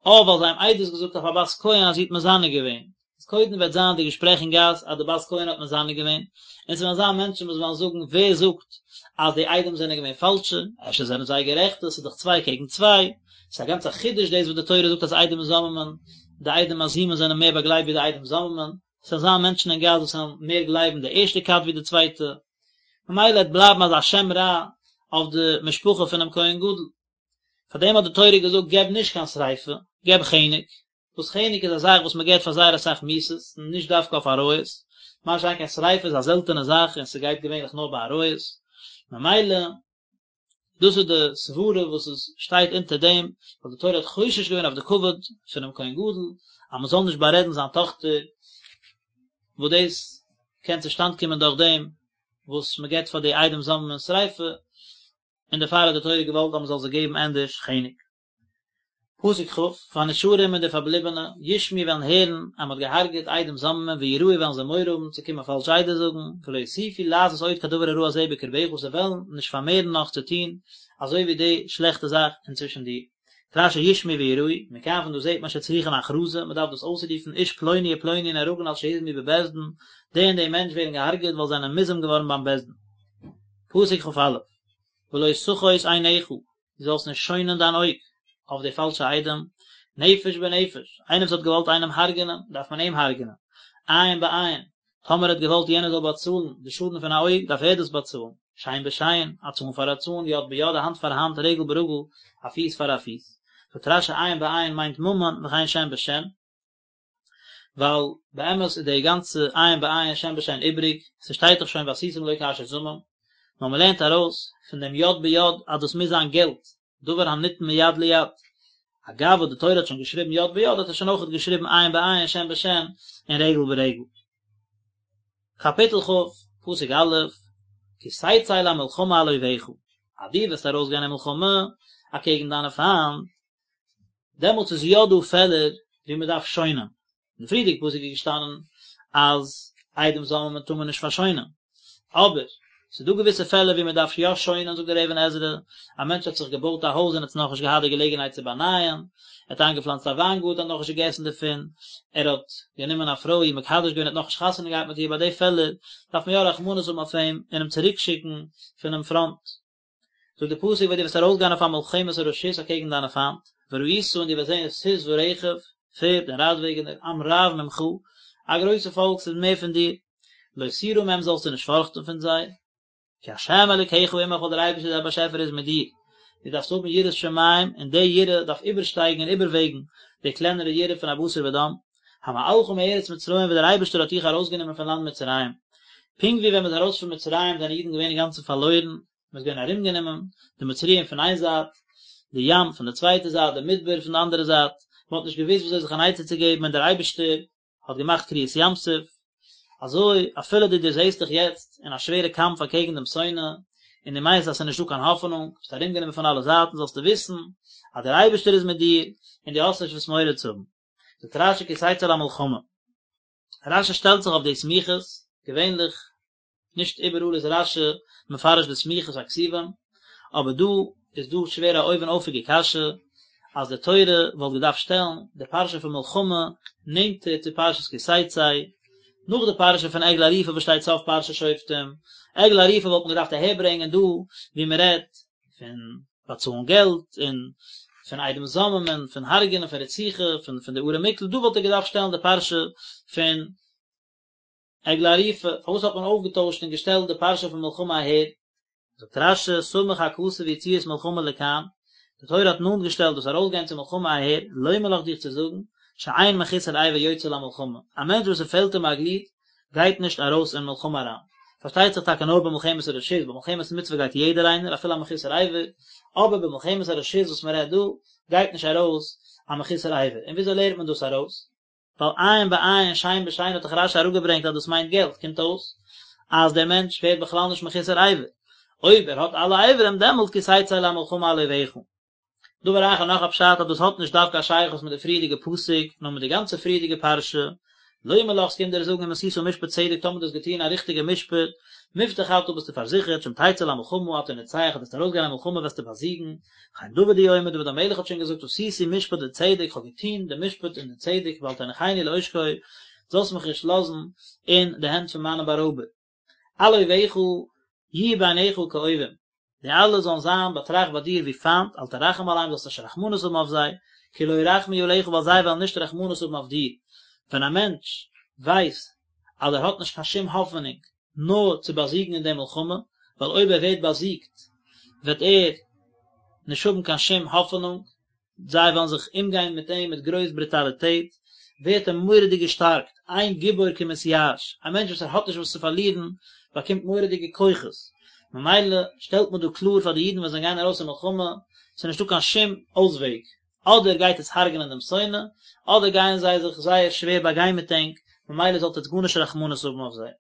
אה ווייל זיי האבן עדות געזאגט אויף א בת כהן אז זי האט מזנה געווען, איז קודם וועט זיין די געשפרעך אין גאס אז די בת כהן האט מזנה געווען, און ס'וועלן זיין מענטשן וואס וועלן זאגן ווער זאגט אז די עדים זענען געווען פאלשע, אפשר זענען זיי גערעכטע, ס'איז דאך צוויי קעגן צוויי, ס'איז א גאנצע חידוש דאס וואס די תורה זאגט אז עדים זוממין, די עדים מזימין זענען מער באגלייבט ווי די עדים זוממין, ס'וועלן זיין מענטשן אין גאס וואס וועלן מער גלייבן די ערשטע כת ווי די צווייטע, ממילא וועט בלייבן אזא שם רע אויף די משפחה פונעם כהן גדול. פאר דעם האט די תורה געזאגט געב נישט קיין שריפה, געב חנק, וואס חנק איז א זאך וואס מען געבט פאר זייער אסאך מיתות, נישט דווקא אויף עריות, מה שאין כן שריפה איז א זעלטענע זאך און ס'גייט געווענליך נאר ביי עריות, ממילא דאס איז די סברה וואס עס שטייט אונטער דעם, ווייל די תורה האט חושש געווען אויף די כבוד פונעם כהן גדול, אז מען זאל נישט בארעדן זיין טאכטער, וואס דאס קען צושטאנד קומען דורך דעם וואס מען געבט פאר די עדים זוממין שריפה, און דערפאר האט די תורה געוואלט אז מען זאל זיי געבן ענדערש חנק. פסוק כ', והנשארים און די פארבליבענע, ישמעו וועלן הערן אז מען האט געהארגעט עדים זוממין ויראו וועלן זיי מורא האבן צו קומען פאלש עדות זאגן, ולא יוסיפו לעשות עוד כדבר הרע הזה בקרבך זיי וועלן נישט פארמערן נאך צו טון אזוי ווי די שלעכטע זאך אינצווישן דיר. רש"י ישמעו ויראו, מכאן פון דא זעט מען שצריכין הכרזה, מען דארף דאס אויסרופן, איש פלוני ופלוני נהרגין על שהוזמו בבית דין, די און די מענטש ווערן געהארגעט ווייל זיי זענען מוזם געווארן ביים בית דין. פסוק כ"א, ולא תחוס עינך, דו זאלסט נישט שוינען דיין אויג אויף די פאלשע עדים, נפש בנפש, איינער וואס האט געוואלט איינעם הרג'נען, דארף מען אים הרג'נען, עין בעין, טאמער ער האט געוואלט יענער זאל באצאלן די שאדן פון א אויג, דארף ער דאס באצאלן, שן בשן, א צאן פאר א צאן, יד ביד, א האנט פאר א האנט, רגל ברגל, א פיס פאר א פיס. זאגט רש"י עין בעין מיינט ממון, וכן שן בשן. ווייל באמת איז די גאנצע עין בעין שן בשן איבריג, ס'שטייט דאך שוין ועשיתם לו כאשר זמם, נאר מ'לערנט ארויס פון דעם יד ביד אז דאס מוז זיין געלט, דבר הניתן מיד ליד, אגב וואס די תורה האט שוין געשריבן יד ביד האט ער שוין אויכעט געשריבן עין בעין שן בשן און רגל ברגל. קאפיטל כ', פסוק א', כי תצא למלחמה על אויביך, אז דו וועסט ארויסגיין אין מלחמה אקעגן דיינע פיינט, דעמאלטס איז יא דא פעלער ווי מען דארף שוינען, אין די פריערדיגע פסוק איז געשטאנען אז עדים זוממין טאר מען נישט פארשוינען, אבער ס'איז דא געוויסע פעלער ווי מען דארף יא שוינען, זאגט דער אבן עזרא, א מענטש האט זיך געבויט א הויז און האט נאכנישט געהאט די געלעגנהייט צו באנייען, ער האט איינגעפלאנצט א וויינגארטן האט נאכנישט געגעסן דערפון, ער האט גענומען א פרוי איר מקדש געווען האט נאכנישט חתונה געהאט מיט איר, ביי די פעלער דארף מען יא רחמנות האבן אויף אים און אים צוריקשיקן פונעם פראנט. זאגט דער פסוק ווען דו וועסט ארויסגיין אויף א מלחמת הרשות אקעגן דיינע פיינט, וראית און דו וועסט זען סוס ורכב, פערד און רייטוועגענער, עם רב ממך, א גרויסע פאלק ס'איז מער פון דיר, לא תירא מהם זאלסטו נישט פארכטן פון זיי, כי ה' אלוקיך עמך ווייל דער אייבערשטער דיין באשעפער איז מיט דיר, דו דארפסט האבן יראת שמים און די יראה דארף איבערשטייגן און איבערוועגן די קלענערע יראה פון א בשר ודם, המעלך מארץ מצרים וואס דער אייבערשטער האט דיך ארויסגענומען פון לאנד מצרים, פונקט ווי ווען מען איז ארויס פון מצרים זענען אידן געווען אינגאנצן פארלוירן, מען איז געווען ארומגענומען, די מצריים פון איין זייט, די ים פון די צווייטע זייט, די מדבר פון די אנדערע זייט, מען האט נישט געוואוסט ווי אזוי זיך אן עצה צו געבן און דער אייבערשטער האט געמאכט קריעת ים סוף, אזוי אפילו דו דערזעסט דיך יעצט אין א שווערע קאמף אקעגן דעם שונא, און דו מיינסט אז עס איז נישטא קיין האפענונג, ביסט ארומגענומען פון אלע זייטן, זאלסטו וויסן אז דער אייבערשטער איז מיט דיר, און דו האסט נישט וואס מורא צו האבן. זאגט רש"י כי תצא למלחמה. רש"י שטעלט זיך אויף די סמיכות, געווענליך נישט איבעראל איז רש"י מפרש די סמיכות הכתובים, אבער דא איז דא שווער א אויבן אויפיגע קשיא, אז די תורה וואלט געדארפט שטעלן די פרשה פון מלחמה נענטער צו פרשת כי תצא, נאך די פרשה פון עגלה ערופה וואס שטייט סוף פרשת שופטים, עגלה ערופה וואלט מען געדארפט אהערברענגען דא ווי מען רעדט פון באצאלן געלט און פון עדים זוממין, פון הרג'נען, פון רציחה, פון פון די ערי מקלט, דא וואלט ער געדארפט שטעלן די פרשה פון. עגלה ערופה, פארוואס האט מען אויפגעטוישט און געשטעלט די פרשה פון מלחמה אהער? זאגט רש"י, סמך הכתוב יציאת מלחמה לכאן, די תורה האט נאנט געשטעלט דאס ארויסגיין צו מלחמה אהער, לומר לך דיך צו זאגן, שאין מחוסר אבר יוצא למלחמה, א מענטש וואס ס'פעלט אים א גליד, גייט נישט ארויס אין מלחמה אריין. פארשטייט זיך טאקע נאר במלחמת הרשות, במלחמת מצוה גייט יעדער איינער, אפילו א מחוסר אבר, אבער במלחמת הרשות וואס מען רעדט דא, גייט נישט ארויס א מחוסר אבר. און וויאזוי לערנט מען דאס ארויס? ווייל עין בעין שן בשן האט דאך רש"י אראפגעברענגט אז דאס מיינט געלט, קומט אויס אז דער מענטש ווערט בכלל נישט מחוסר אבר, אויב ער האט אלע אברים דעמאלט כי תצא למלחמה על אויביך. דבר אחר נאך א פשט אז דאס האט נישט דווקא א שייכות מיט די פריערדיגע פסוק נאר מיט די גאנצע פריערדיגע פרשה, לומר לך ס'קומט דיר זאגן אם עשית משפט צדק טאמער דו האסט געטון א ריכטיגע משפט, מובטח אתה ביסטו פארזיכערט שאם תצא למלחמה אתה נוצח אז וועסט ארויסגיין אין מלחמה וועסטו באזיגן, וכן דוד הוא אומר דוד המלך האט שוין געזאגט עשיתי משפט וצדק כ'האב געטון די משפט און די צדק ואל תניחני לעושקי זאלסט מיך נישט לאזן אין די הענט פון מיינע בארויבער. על אויביך יהיו בעיניך כאויבים, די אלע זאלן זיין באטראכט ביי דיר ווי פיינט, אל תרחם עליהם זאלסט נישט רחמנות האבן אויף זיי, כי לא ירחמו עליך ווייל זיי וועלן נישט רחמנות האבן אויף דיר. ווען א מענטש ווייסט אז ער האט נישט קיין שום האפענונג נאר צו באזיגן אין די מלחמה, ווייל אויב ער ווערט באזיגט וועט ער נישט האבן קיין שום האפענונג, זיי וועלן זיך אומגיין מיט אים מיט גרויס ברוטאליטעט, ווערט ער מורא'דיג געשטארקט, אין גיבור כמתייאש, א מענטש וואס ער האט נישט וואס צו פארלירן באקומט מורא'דיגע כוחות, ממילא שטעלט מען דא קלאר פאר די אידן ווען זיי גייען ארויס אין מלחמה, ס'איז נישטא קיין שום אויסוועג, אדער גייט עטס הרג'נען דעם שונא, אדער גייען זיי זיך זייער שווער באגיין מיט ענק, ממילא זאלט עטס גארנישט רחמנות האבן אויף זיי.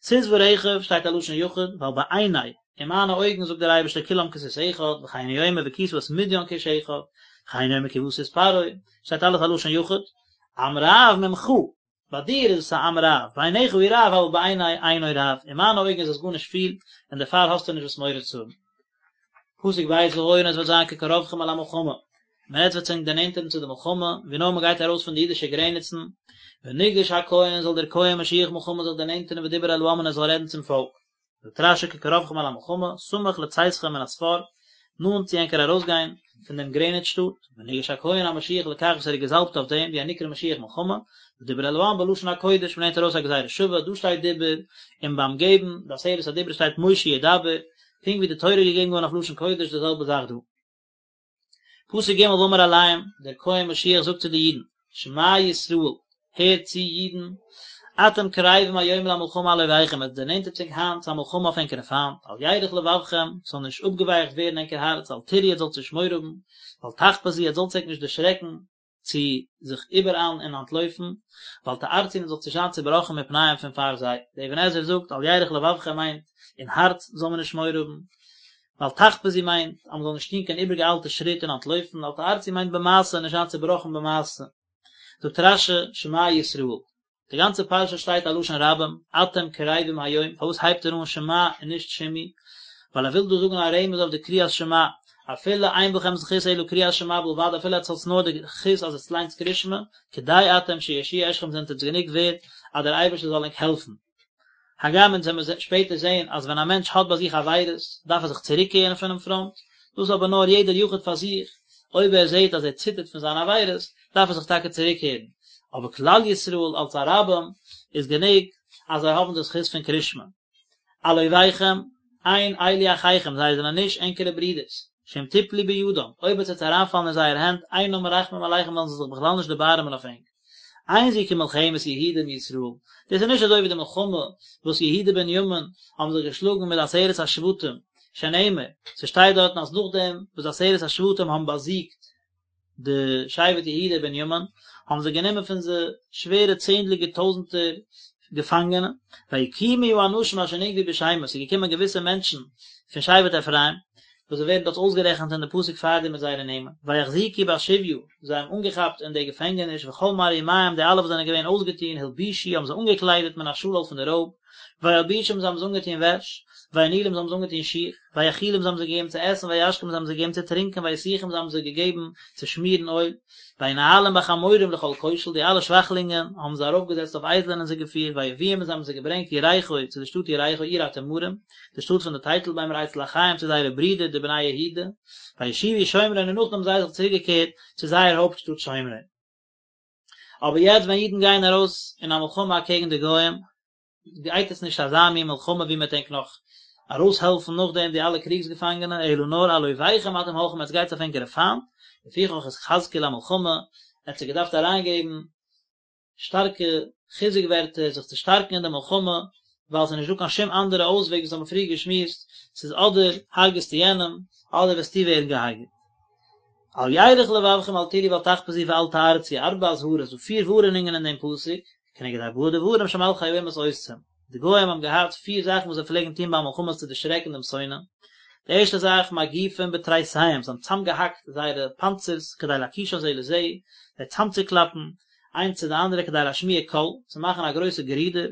סוס ורכב שטייט א לשון יחיד, ווייל בעיני, אין מיינע אויגן זאגט דער אייבערשטער כולם כסוס אחד, וכן הוא אומר והכית את מדין כאיש אחד, וכן הוא אומר כי בא סוס פרעה, שטייט אלעס א לשון יחיד, עם רב ממך, ביי דיר איז עס א עם רב, בעיניך הוא רב אבל בעיני אינו רב, אין מיינע אויגן איז עס גארנישט פיל, און דערפאר האסטו נישט וואס מורא צו האבן. פסוק ב' והיה און עס וועט זיין כקרבכם אל המלחמה, ווען עטס וועט זיך דערנענטערן צו די מלחמה, ווי נאר מען גייט ארויס פון די אידישע גרעניצן, ונגש הכהן זאל דער כהן משוח מלחמה זיך דערנענטערן ודיבר אל העם און ער זאל רעדן צום פאלק. זאגט רש"י כקרבכם אל המלחמה, סמוך לצאתכם מן הספר, נאנט צו ענקער ארויסגיין פון דעם גרעניץ שטאט, ונגש הכהן המשוח לכך וואס ער איז געזאלבט אויף דעם, והוא הנקרא משוח מלחמה, ודיבר אל העם בלשון הקודש, מ'לערנט ארויס א גזירה שווה, דא שטייט דיבר, און ביים געבן די עשרת הדיברות שטייט משה ידבר, פונקט ווי די תורה איז געגעבן געווארן אויף לשון קודש די זעלבע זאך דא. פסוק ג' ואמר אליהם, דער כהן משוח זאגט צו די אידן, שמע ישראל, הערט צו אידן, אתם קרבים היום למלחמה על אויביכם, עטס דערנענטערט זיך היינט צו א מלחמה אויף ענקערע פיינט, אל ירך לבבכם, ס'זאל נישט אפגעווייכט ווערן ענקער הארץ, אל תיראו עטס זאלטס נישט מורא האבן, ואל תחפזו עטס זאלטס ענק נישט דערשרעקן, צו זיך איבעראיילן און אנטלויפן, ואל תערצו און זאלטס נישט זיין צובראכן מפניהם פון פאר זיי. דער אבן עזרא זאגט, אל ירך לבבכם מיינט, אין הארץ זאל מען נישט מורא האבן, ואל תחפזו מיינט, אז מען זאל נישט טון קיין איבערגעאיילטע שריט און אנטלויפן, ואל תערצו מיינט במעשה, נישט זיין צובראכן במעשה. זאגט רש"י, שמע ישראל. די גאנצע פרשה שטייט א לשון רבים, אתם קרבים היום, פארוואס הייבט ער אן שמע און נישט שמעו? ווייל ער וויל דא זאגן א רמז אויף די קריאת שמע, אפילו אין בכם זכות אלא קריאת שמע בלבד, אפילו עטס האטס נאר די זכות אז עטס ליינטס קריאת שמע, כדאי אתם שיושיע אתכם זענט עטס גענוג ווערד אז דער אייבערשטער זאל ענק העלפן. הגם אונז וועמיר שפעטער זעהן אז ווען א מענטש האט ביי זיך עבירות דארף ער זיך צוריקקערן פונעם פראנט, דאס אבער נאר יעדער יחיד פאר זיך, אויב ער זעהט אז ער ציטערט פון זיינע עבירות דארף ער זיך טאקע צוריקקערן, אבער כלל ישראל אלס א רבים איז גענוג אז זיי האבן די זכות פון קרישמע. על אויביכם, אין אלו אחיכם, זיי זענען נישט ענקערע ברידערס, שאם תפלו בידם, אויב עטס וועט אריינפאלן אין זייער הענט, אינם מרחמים עליכם וועלן זיי זיך בכלל נישט דערבארעמען אויף ענק. אין זו כמלחמת יהודה עם ישראל, דאס איז נישט אזוי ווי די מלחמה וואס יהודה בנימין האבן זיך געשלאגן מיט די עשרת השבטים, שנאמר, ס'שטייט דארטן אז נאכדעם וואס די עשרת השבטים האבן באזיגט די שבט יהודה בנימין, האבן זיי גענומען פון זיי שווערע צענדליגער טויזנטער געפאנגענע, ויקומו האנשים אשר נגבו בשמות, ס'איז געקומען געוויסע מענטשן פון שבט אפרים, וואס זיי ווערן דארט אויסגערעכנט אין די פסוק פארדעם מיט זייערע נעמען, ויחזיקו בשביה, זיי האבן אנגעכאפט אין די געפענגעניש, וכל מערומיהם, די אלע וואס זענען געווען אויסגעטון, הלבישו, האבן זיי אנגעקליידעט מן השלל פון די רויב, וילבישום, זיי האבן זיי אנגעטון וועש, וינעילום, זיי האבן זיי אנגעטון שיך, ויאכילום, זיי האבן זיי געגעבן צו עסן, וישקום, זיי האבן זיי געגעבן צו טרינקען, ויסוכם, זיי האבן זיי געגעבן צו שמירן אויל, וינהלום בחמורים לכל כושל, די אלע שוואכלינגען האבן זיי ארויפגעזעצט אויף אייזלען און זיי געפירט, ויביאום, און זיי האבן זיי געברענגט יריחו, צו די שטאט יריחו, עיר התמרים, די שטאט פון די טייטלביימער אצל אחיהם צו זייערע ברידער די בני יהודה, וישובו שומרון און נאכדעם האבן זיי זיך צוריק געקערט צו זייער הויפט שטאט שומרון. אבער יעצט ווען אידן גייען ארויס אין א מלחמה אקעגן די גוים, גייט עס נישט אזא מין מלחמה ווי מ'וועט ענק נאך ארויסהעלפן נאכדעם די אלע קריגס געפאנגענע, אלא נאר על אויביכם אתם הולכים עטס גייטס אויף ענקערע פיינט, לפיכך התחזקו למלחמה, ער האט זיי געדארפט אריינגעבן שטארקע חיזוק ווערטער זיך צו שטארקן אין די מלחמה, ווייל ס'איז נישטא קיין שום אנדערע אויסוועג וואס האבן פריער געשמועסט, ס'איז אדער הרג'סטו יענעם, אדער וועסטו ווערן געהארגעט. אל ירך לבבכם אל תיראו ואל תחפזו ואל תערצו, ארבע אזהרות, דא פיר ווארענונגען אין דעם פסוק, כנגד ארבעה דברים שמלכי האומות עושים, די גוים האבן געהאט פיר זאכן וואס זיי פלעגן טון ביי מלחמות צו דערשרעקן דעם שונא, די ערשטע זאך, מגיפים בתריסיהם, זיי האבן צאמגעהאקט זייערע פאנצערס כדי להקישן זה לזה, זיי צאמצוקלאפן איינס צו די אנדערע כדי להשמיע קול, צו מאכן א גרויסע גערודער,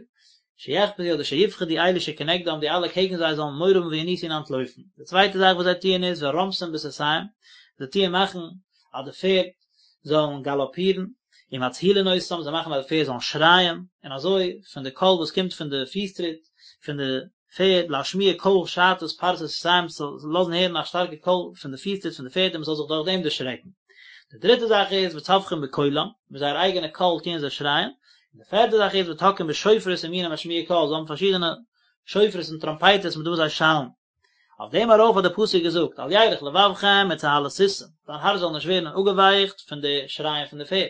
שיחפזו אדער שיפחדו אלו שכנגדם, די אלע קעגן זיי זאלן מורא האבן וינוסו און אנטלויפן. די צווייטע זאך וואס זיי טוען איז ורומסים בסוסיהם, זיי טוען מאכן אז די פערד זאלן גאלאפירן, ומצהילין אותם, זיי מאכן אז די פערד זאלן שרייען, און אזוי פון די קול וואס קומט פון די פיס טריט פון די פערד, להשמיע קול שעטת פרסי סוסיהם, ס'זאל לאזן הערן א שטארקע קול פון די פיס טריט פון די פערד און מ'זאל זיך דורך דעם דערשרעקן. די דריטע זאך איז וצווחים בקולם, מיט זייער אייגענע קול טוען זיי שרייען, און די פערטע זאך איז ותוקעים בשופרות ומיני משמיעי קול, זיי האבן פארשידענע שופרות און טראמפייטערס מיט וואס זיי שאלן. אויף דעם ארויף האט דער פסוק געזאגט, אל ירך לבבכם מצהלת סוסים, דיין הארץ זאל נישט ווערן אפגעווייכט פון די שרייען פון די פערד,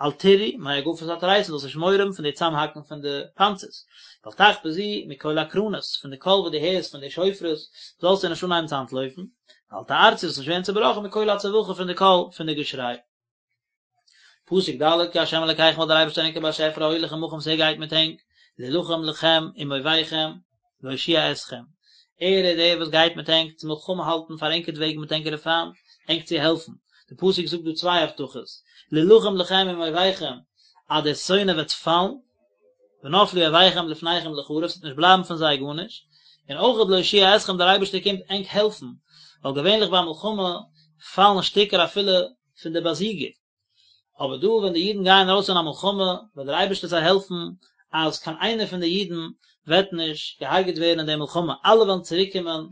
אל תיראו מהגפת התריסים, זאלסט נישט מורא האבן פון די צאמהאקן פון די פאנצערס, ואל תחפזו מקול הקרנות, פון די קול וואס דו הערסט פון די שופרות, זאלסטו נישט אנהייבן צו אנטלויפן, ואל תערצו, זאלסט נישט ווערן צעבראכן מקול הצווחה, פון די קול פון די געשריי. פסוק ד' כי ה' אלקיכם ווייל דער אייבערשטער ענקער באשעפער ההולך עמכם וואס ער גייט מיט ענק, להילחם לכם עם אויביכם, להושיע אתכם, ער איז דער וואס גייט מיט ענק צו מלחמה האלטן פאר ענקערט וועגן מיט ענקערע פיינט, ענק צו העלפן. דער פסוק זאגט דא צוויי הבטחות, להילחם לכם עם אויביכם, אז דער שונא וועט פאלן, ונפלו אויביכם לפניכם לחרב, ס'וועט נישט בלייבן פון זיי גארנישט, און אויך להושיע אתכם, דער אייבערשטער קומט ענק העלפן, ווייל געווענליך ביי מלחמה פאלן שטיקער אפילו פון די באזיגער, אבער דא ווען די אידן גייען ארויס אין א מלחמה וועט דער אייבערשטער זיי העלפן אז קיין איינער פון די אידן וועט נישט געהארגעט ווערן אין די מלחמה, אלע וועלן צוריק קומען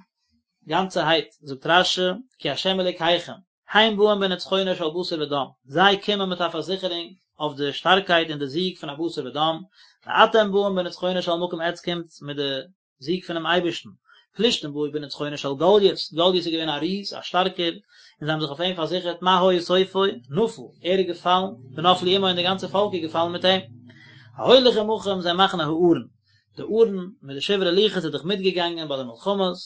גאנצערהייט, זאגט רש"י, כי ה' אלוקיכם, הם באים בנצחונו של בשר ודם, זיי קומען מיט א פארזיכערונג אויף די שטארקייט און די זיג פון א בשר ודם, ואתם באים בנצחונו של מקום עטץ קומטס מיט די זיג פונעם אייבערשטן. פלישתים באו בנצחונו של גלית, גלית איז געווען א ריז, א שטארקער, און זיי האבן זיך אויף אים פארזיכערט, מה היה סופו? נפל, ער איז געפאלן, ונפלו עמו און די גאנצע פאלק איז געפאלן מיט אים. ההולך עמכם זה מחנה הארון, די ארון מיט די שברי לוחות איז דאך מיטגעגאנגען ביי די מלחמות,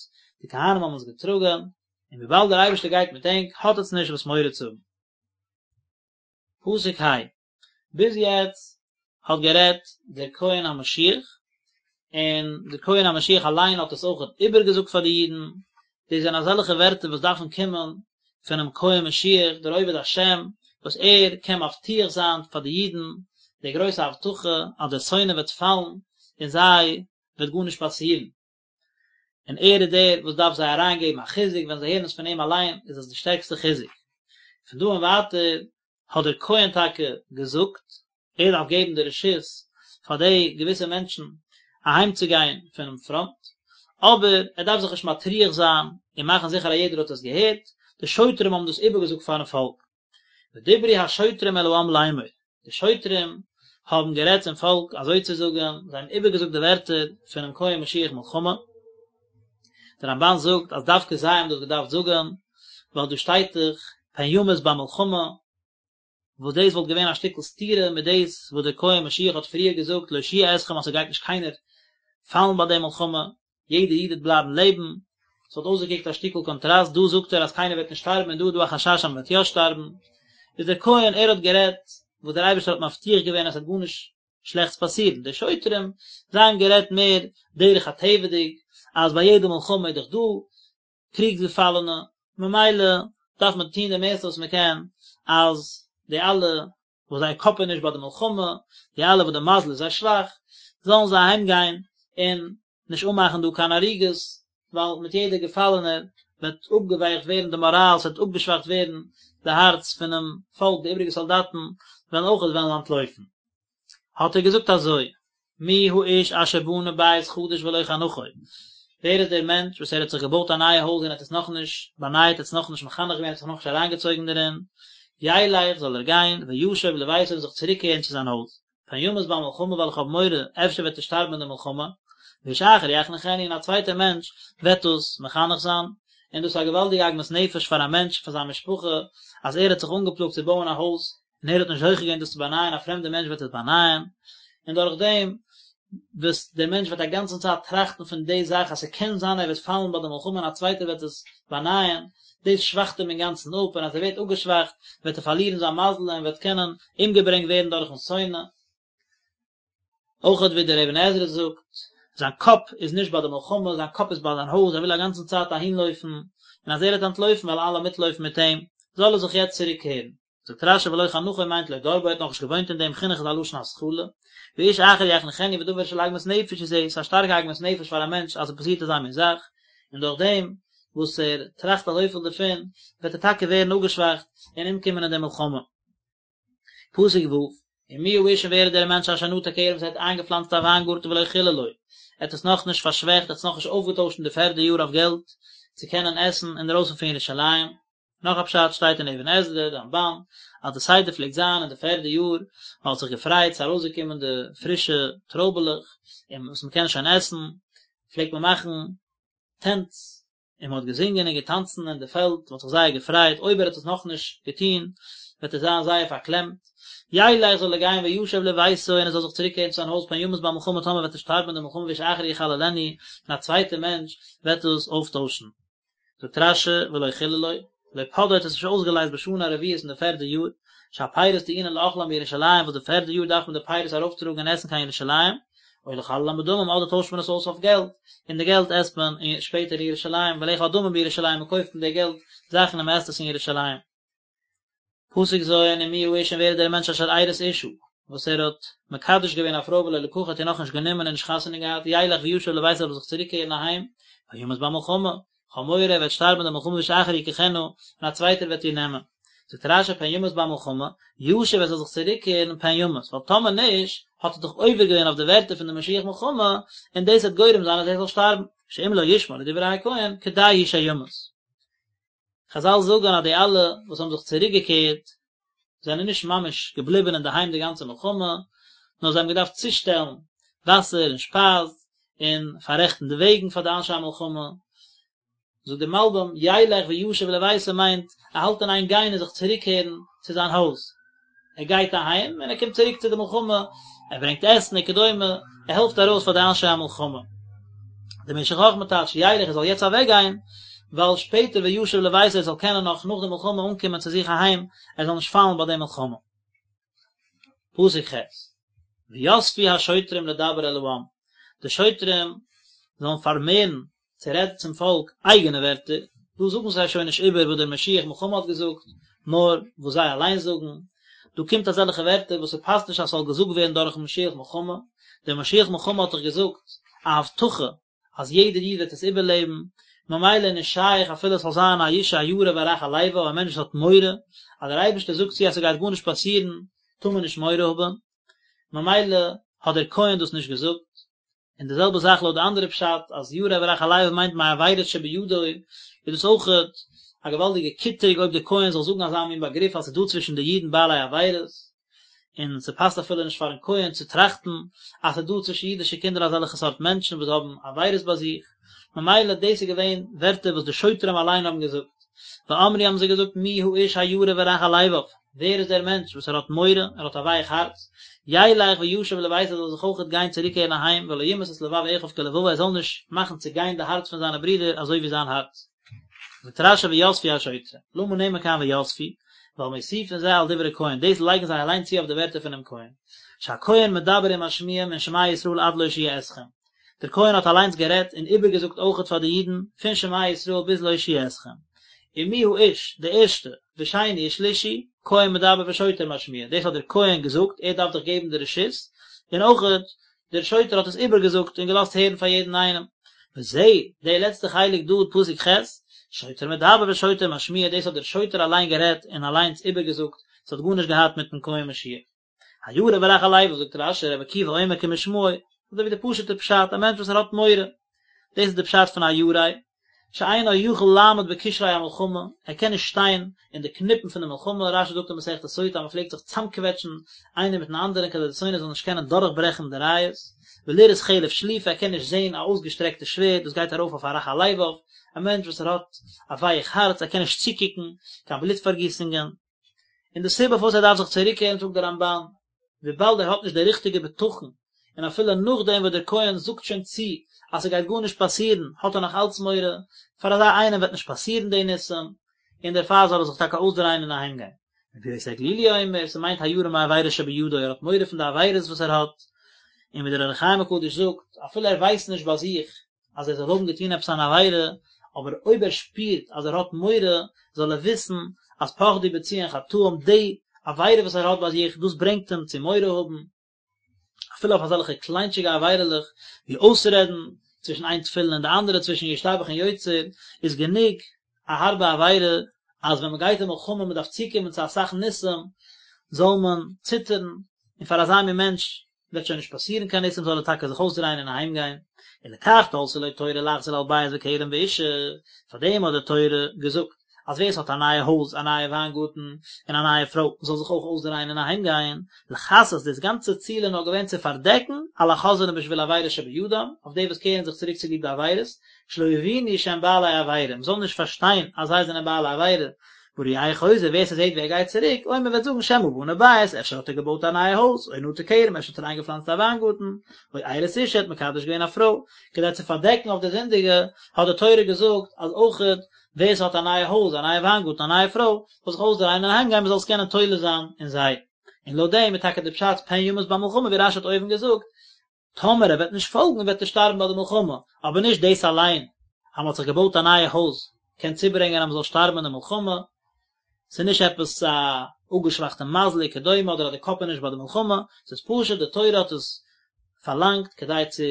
די כהנים האבן עס געטראגען, און וויבאלד דער אייבערשטער גייט מיט ענק, האט עטס נישט וואס מורא צו האבן. פסוק ה'. ביז יעצט האט גערעדט דער כהן המשיח, און דער כהן המשיח אליין האט עס אויך איבערגעזאגט פאר די אידן, דאס זענען אזעלכע ווערטער וואס דארפן קומען פונעם כהן משיח, דער עובד השם, וואס ער קען מבטיח זיין פאר די אידן די גרויסע הבטחה אז דער שונא וועט פאלן און זיי וועט גארנישט פאסירן. און ער איז דער וואס דארף זיי אריינגעבן א חיזוק, ווען זיי הערן עס פון אים אליין איז עס די שטערקסטע חיזוק. פון דא און ווייטער האט דער כהן טאקע געזאגט, ער דארף געבן די רשות פאר די געוויסע מענטשן אהיימצוגיין פונעם פראנט, אבער ער דארף זיך נישט מטריח זיין און מאכן זיכער אז יעדער האט עס געהערט, די שוטרים האבן דאס איבערגעזאגט פארן פאלק. ודברו השוטרים אל העם לאמור, די שוטרים האבן גערעדט צום פאלק אזוי צו זאגן, זיי האבן איבערגעזאגט די ווערטער פונעם כהן משיח מלחמה. דער רמב"ן זאגט אז דווקא זיי האבן דאס געדארפט זאגן, ווייל דא שטייט דאך פן ימות במלחמה, וואס דאס וואלט געווען א שטיקל סתירה מיט דאס וואס דער כהן משיח האט פריער געזאגט להושיע אתכם אז ס'גייט נישט קיינער פאלן ביי די מלחמה, יעדער איד וועט בלייבן לעבן, ס'וואלט אויסגעקוקט א שטיקל קאנטראסט, דא זאגט ער אז קיינער וועט נישט שטארבן און דא איז דא א חשש אז מ'וועט יא שטארבן, איז דער כהן ער האט גערעדט וואס דער אייבערשטער האט מבטיח געווען אז ס'וועט גארנישט שלעכטס פאסירן, די שוטרים זיי האבן גערעדט מער דרך הטבע'דיג אז ביי יעדע מלחמה איז דאך דא קריגס געפאלענע, ממילא דארף מען טון די מערסטע וואס מען קען אז די אלע וואס זייער קאפ איז נישט ביי די מלחמה, די אלע וואס די מזל איז זיי שוואך, זאלן זיי אהיים גיין און נישט אנמאכן דא קיין הריגות, ווייל מיט יעדער געפאלענער וועט אפגעווייכט ווערן די מאראל, ס'וועט אפגעשוואכט ווערן די הארץ פונעם פאלק, די איבריגע סאלדאטן וועלן אויכעט וועלן אנטלויפן. האט ער געזאגט אזוי, מי האיש אשר בנה בית חדש ולא חנכו, ווער איז דער מענטש וואס ער האט זיך געבויט א נייע הויז און האט עס נאכנישט באנייט, האט עס נאכנישט מחנך געווען, האט זיך נאכנישט אריינגעצויגן דערין, ילך, זאל ער גיין, וישוב לביתו און זיך צוריקקערן צו זיין הויז. פן ימות במלחמה ווייל איך האב מורא אפשר וועט ער שטארבן אין די מלחמה, ואיש אחר יחנכנו און א צווייטער מענטש וועט דאס מחנך זיין, און דאס איז א געוואלדיגע עגמת נפש פאר א מענטש פאר זיין משפחה אז ער האט זיך אנגעפלאגט צו בויען א הויז און ער האט נישט זוכה געווען דאס צו באנייען א פרעמדער מענטש וועט עס באנייען, און דורך דעם וואס דער מענטש וועט א גאנצן צייט טראכטן פון די זאך אז ס'קען זיין ער וועט פאלן ביי די מלחמה און א צווייטער וועט עס באנייען, דאס שוואכט אים אינגאנצן אפ און אז ער ווערט אפגעשוואכט וועט ער פארלירן זיין מזל און וועט קענען אומגעברענגט ווערן דורכן שונא. אויך ווי דער אבן עזרא זאגט, זיין קאפ איז נישט ביי די מלחמה, זיין קאפ איז ביי זיין הויז, ער וויל א גאנצן צייט אהינלויפן, און אז ער וועט אנטלויפן וועלן אלע מיטלויפן מיט אים, זאל ער זיך יעצט צוריקקערן. זאגט רשי ולא חנכו מיינט לא דר בו ער האט נאכנישט געוואוינט אין דעם חינוך איז א לשון התחלה, ואיש אחר יחנכנו ודבר של עגמת נפש הוא זה, ס'איז א שטארקע עגמת נפש פאר א מענטש אז עס פאסירט אזא מין זאך, און דורך דעם וואס ער טראכט אזויפיל דערפון וועט ער טאקע ווערן אפגעשוואכט און אומקומען אין די מלחמה. פסוק ו', ומי האיש און ווער איז דער מענטש אשר נטע כרם וואס ער האט איינגעפלאנצט א וויינגארטן ולא חללו, ער האט עס נאכנישט פארשוועכט, ער האט עס נאכנישט אויפגעטוישט אין די פערדע יאר אויף געלט צו קענען עסן אינדערויסן פון ירושלים. נאך א פשט שטייט אין אבן עזרא, רמבן, אז די סדר פלעגט זיין אין די פערדע יאר, מען האט זיך געפרייט ס'איז ארויסגעקומען די פרישע טרויבעלעך און וואס מען קען שוין עסן, פלעגט מען מאכן טענץ, און מען האט געזינגען און געטאנצן אין די פעלד, מען האט זיך זייער געפרייט, אויב ער האט עס נאכנישט געטון, וועט ער זיין זייער פארקלעמט. ילך זאל ער גיין וישוב לביתו און ער זאל זיך צוריקקערן צו זיין הויז פן ימות במלחמה טאמער וועט ער שטארבן אין די מלחמה ואיש אחר יחללנו, און א צווייטער מענטש וועט דאס אויפטוישן. זאגט רשי ולא חללו, לא פדאו האט עס נישט אויסגעלייזט בשנה הרביעית אין די פערדע יאר, שהפירות טעונין לאכלם בירושלים וואס די פערדע יאר דארף מען די פירות ארויפטראגן און עסן קיין ירושלים, או לחללם בדמים אדער טוישט מען עס אויס אויף געלט, און די געלט עסט מען שפעטער אין ירושלים, ולאכול הדמים בירושלים מען קויפט מיט די געלט זאכן און מען עסט עס אין ירושלים. פסוק ז' ומי האיש און ווער איז דער מענטש אשר ארש אשה, וואס ער האט מקדש געווען א פרוי ולא לקחה האט איר נאכנישט גענומען און נישט חתונה געהאט, ילך וישוב לביתו זאל ער זיך צוריקקערן אהיים, פן ימות במלחמה, כ'האב מורא ער וועט שטארבן אין די מלחמה ואיש אחר יקחנה, און א צווייטער וועט איר נעמען. זאגט רשי פן ימות במלחמה, ישוב ער זאל זיך צוריקקערן פן ימות, ווייל טאמער נישט, האט ער דאך עובר געווען אויף די ווערטער פון די משוח מלחמה, און דאס וועט גורם זיין אז ער זאל שטארבן, שאם לא ישמע לדברי הכהן, כדאי הוא שימות. חזל זאגן אז די אלע וואס האבן זיך צוריק געקערט זענען נישט ממש געבליבן אינדערהיים די גאנצע מלחמה, נאר זיי האבן געדארפט צושטעלן וואסער און שפייז און פאררעכטן די וועגן פאר די אנשי המלחמה. זאגט דער מלבים, ילך וישוב לביתו מיינט ער האלט אין איין גיין און זיך צוריקקערן צו זיין הויז. ער גייט אהיים און ער קומט צוריק צו די מלחמה, ער ברענגט עסן וכדומה, ער העלפט ארויס פאר די אנשי המלחמה. דער משך חכמה טייטשט ילך ער זאל יעצט אוועק גיין, ווייל שפעטער וישוב לביתו ער זאל קענען נאך נאך די מלחמה אנקומען צו זיך אהיים, ער זאל נישט פאלן ביי די מלחמה. פסוק ח', ויספו השוטרים לדבר אל העם, די שוטרים זאלן פארמערן צו רעדן צום פאלק אייגענע ווערטער, דא זאגן זיי שוין נישט איבער וואס דער משוח מלחמה האט געזאגט, נאר וואס זיי אליין זאגן, דא קומט אזעלכע ווערטער וואס ס'פאסט נישט אז ס'זאל געזאגט ווערן דורכן משוח מלחמה, דער משוח מלחמה האט דאך געזאגט א הבטחה אז יעדער איד וועט עס איבערלעבן, ממילא איז נישט שייך אפילו עס זאל זיין א איש הירא ורך הלבב, א מענטש וואס האט מורא אז דער אייבערשטער זאגט צו אז ס'גייט גארנישט פאסירן, טאר מען נישט מורא האבן, ממילא האט דער כהן דאס נישט געזאגט. און די זעלבע זאך לויט די אנדערע פשט אז ירא ורך הלבב מיינט מעבירות שבידו, איז דאס אויכעט א געוואלדיגע קיטרוג אויב די כהן זאל זאגן אזא מין באגריף אז ס'איז דא צווישן די אידן בעלי עבירות, און ס'פאסט אפילו נישט פארן כהן צו טראכטן אז ס'איז דא צווישן אידישע קינדער אזעלכע סארט מענטשן וואס האבן עבירות ביי זיך, ממילא דאס איז געווען ווערטער וואס די שוטרים אליין האבן געזאגט. ואמרו האבן זיי געזאגט מי האיש הירא ורך הלבב, ווער איז דער מענטש וואס ער האט מורא, ער האט א ווייך הארץ, ילך וישוב לביתו ער זאל זיך אויכעט גיין צוריקקערן אהיים, ולא ימס את לבב אחיו כלבבו ער זאל נישט מאכן צעגיין די הארץ פון זיינע ברידער אזוי ווי זיין הארץ. זאגט רשי ויספו השוטרים, למה נאמר כאן ויספו, ווייל מוסיפין זה על דברי כהן, דאס לייגן זיי אליין צו אויף די ווערטער פונעם כהן, שהכהן מדבר ומשמיע מן שמע ישראל עד להושיע אתכם, דער כהן האט אליינס גערעדט און איבערגעזאגט אויכעט פאר די אידן, פון שמע ישראל ביז להושיע אתכם. ומי האיש, די ערשטע, ושני ושלישי, כהן מדבר ושוטר משמיע, דאס האט דער כהן געזאגט, ער דארף דאך געבן די רשות, און אויכעט דער שוטר האט עס איבערגעזאגט און געלאזט הערן פאר יעדן איינעם. וזה, די לעצטע חלק דא, פסוק ח', שוטר מדבר ושוטר משמיע, דאס האט דער שוטר אליין גערעדט און אליינס איבערגעזאגט, עס האט גארנישט געהאט מיטן כהן משיח. הירא ורך הלבב זאגט רשי רבי עקיבא אומר כמשמעו, אזוי ווי די פשוט'ע פשט, א מענטש וואס ער האט מורא, דאס איז די פשט פון הירא. שאינו יכול לעמוד בקשרי המלחמה, ער קען נישט שטיין אין די קניפן פון די מלחמה, רש"י זאגט אין מסכת סוטה אז מען פלעגט זיך צאמקוועטשן איינער מיטן אנדערן כדי די שונא זאל נישט קענען דורכברעכן די רייעס, ולראות חרב שלופה, ער קען נישט זען א אויסגעשטרעקטע שווערד, דאס גייט ארויף אויף א רך הלבב, א מענטש וואס ער האט א ווייך הארץ, ער קען נישט צוקוקן קיין בלוט פארגיסונגען. און די סיבה פארוואס ער דארף זיך צוריקקערן זאגט דער רמב"ן, וויבאלד ער האט נישט די ריכטיגע בטחון, און אפילו נאכדעם וואס דער כהן זאגט שוין צו אז ס'גייט גארנישט פאסירן, האט ער נאך אלץ מורא, פאר אזא איינעם וועט נישט פאסירן די ניסים, און דערפאר זאל ער זיך טאקע אויסדרייען און אהיימגיין. רבי יוסי הגלילי אומר, ס'מיינט הירא מעבירה שבידו, ער האט מורא פון די עבירות וואס ער האט, און ווי דער אור החיים הקדוש זאגט, אפילו ער ווייסט נישט ביי זיך אז ער זאל האבן געטון עפעס אן עבירה, אבער אויב ער שפירט אז ער האט מורא, זאל ער וויסן אז פחדו בציון חטאים, די עבירה וואס ער האט ביי זיך, דאס ברענגט אים צו מורא האבן, אפילו אויף אזעלכע קליינטשיגע עבירה'לעך, ווי אויסרעדן צווישן איין תפילין און די אנדערע, צווישן ישתבח און יוצר, איז גענוג א הארבע עבירה, אז ווען מען גייט אין מלחמה מען דארף צוקומען צו אסאך ניסים, זאל מען ציטערן, און פאר אזא מין מענטש וועט שוין נישט פאסירן קיין ניסים זאל ער טאקע זיך אויסדרייען און אהיים גיין, ולכך תלתה לו תורה לחזור על בית וכרם ואישה, פאר דעם האט די תורה געזאגט אז ווער עס האט א נייע הויז, א נייע וויינגארטן, און א נייע פרוי, זאל זיך אויך אויסדרייען און אהיים גיין, לכסות דאס גאנצע ציל איז נאר געווען צו פארדעקן על החוזרים בשביל עבירה שבידם, אויף די וואס קערן זיך צוריק צוליב די עבירות, שלא יבינו שהם בעלי עבירה, מען זאל נישט פארשטיין אז זיי זענען בעלי עבירה, והרואהו חוזר, ווער ס'זעט ווי ער גייט צוריק, אומר וועט זאגן שמא בנה בית, אפשר האט ער געבויט א נייע הויז, או נטע כרם, אפשר האט ער איינגעפלאנצט א וויינגארטן, או ארש אשה, האט מקדש געווען א פרוי. כדי צו פארדעקן אויף די זינדיגע, האט די תורה געזאגט אז אויכעט ווער ס'האט א נייע הויז, א נייע וויינגארטן, א נייע פרוי, זאל זיך אויסדרייען און אהיימגיין מ'זאל עס קענען תולה זיין אין זיי. און לויט דעם איז טאקע די פשט פן ימות במלחמה ווי רש"י האט אויבן געזאגט, טאמער ער וועט נישט פאלגן וועט ער שטארבן ביי די מלחמה, אבער נישט דאס אליין אז מען האט זיך געבויט א נייע הויז קען צוברענגען אז מען זאל שטארבן אין די מלחמה, ס'איז נישט עפעס א אפגעשוואכטע מזל וכדומה אדער אז די קאפ איז נישט ביי די מלחמה, ס'איז פשוט די תורה האט עס פארלאנגט כדי צו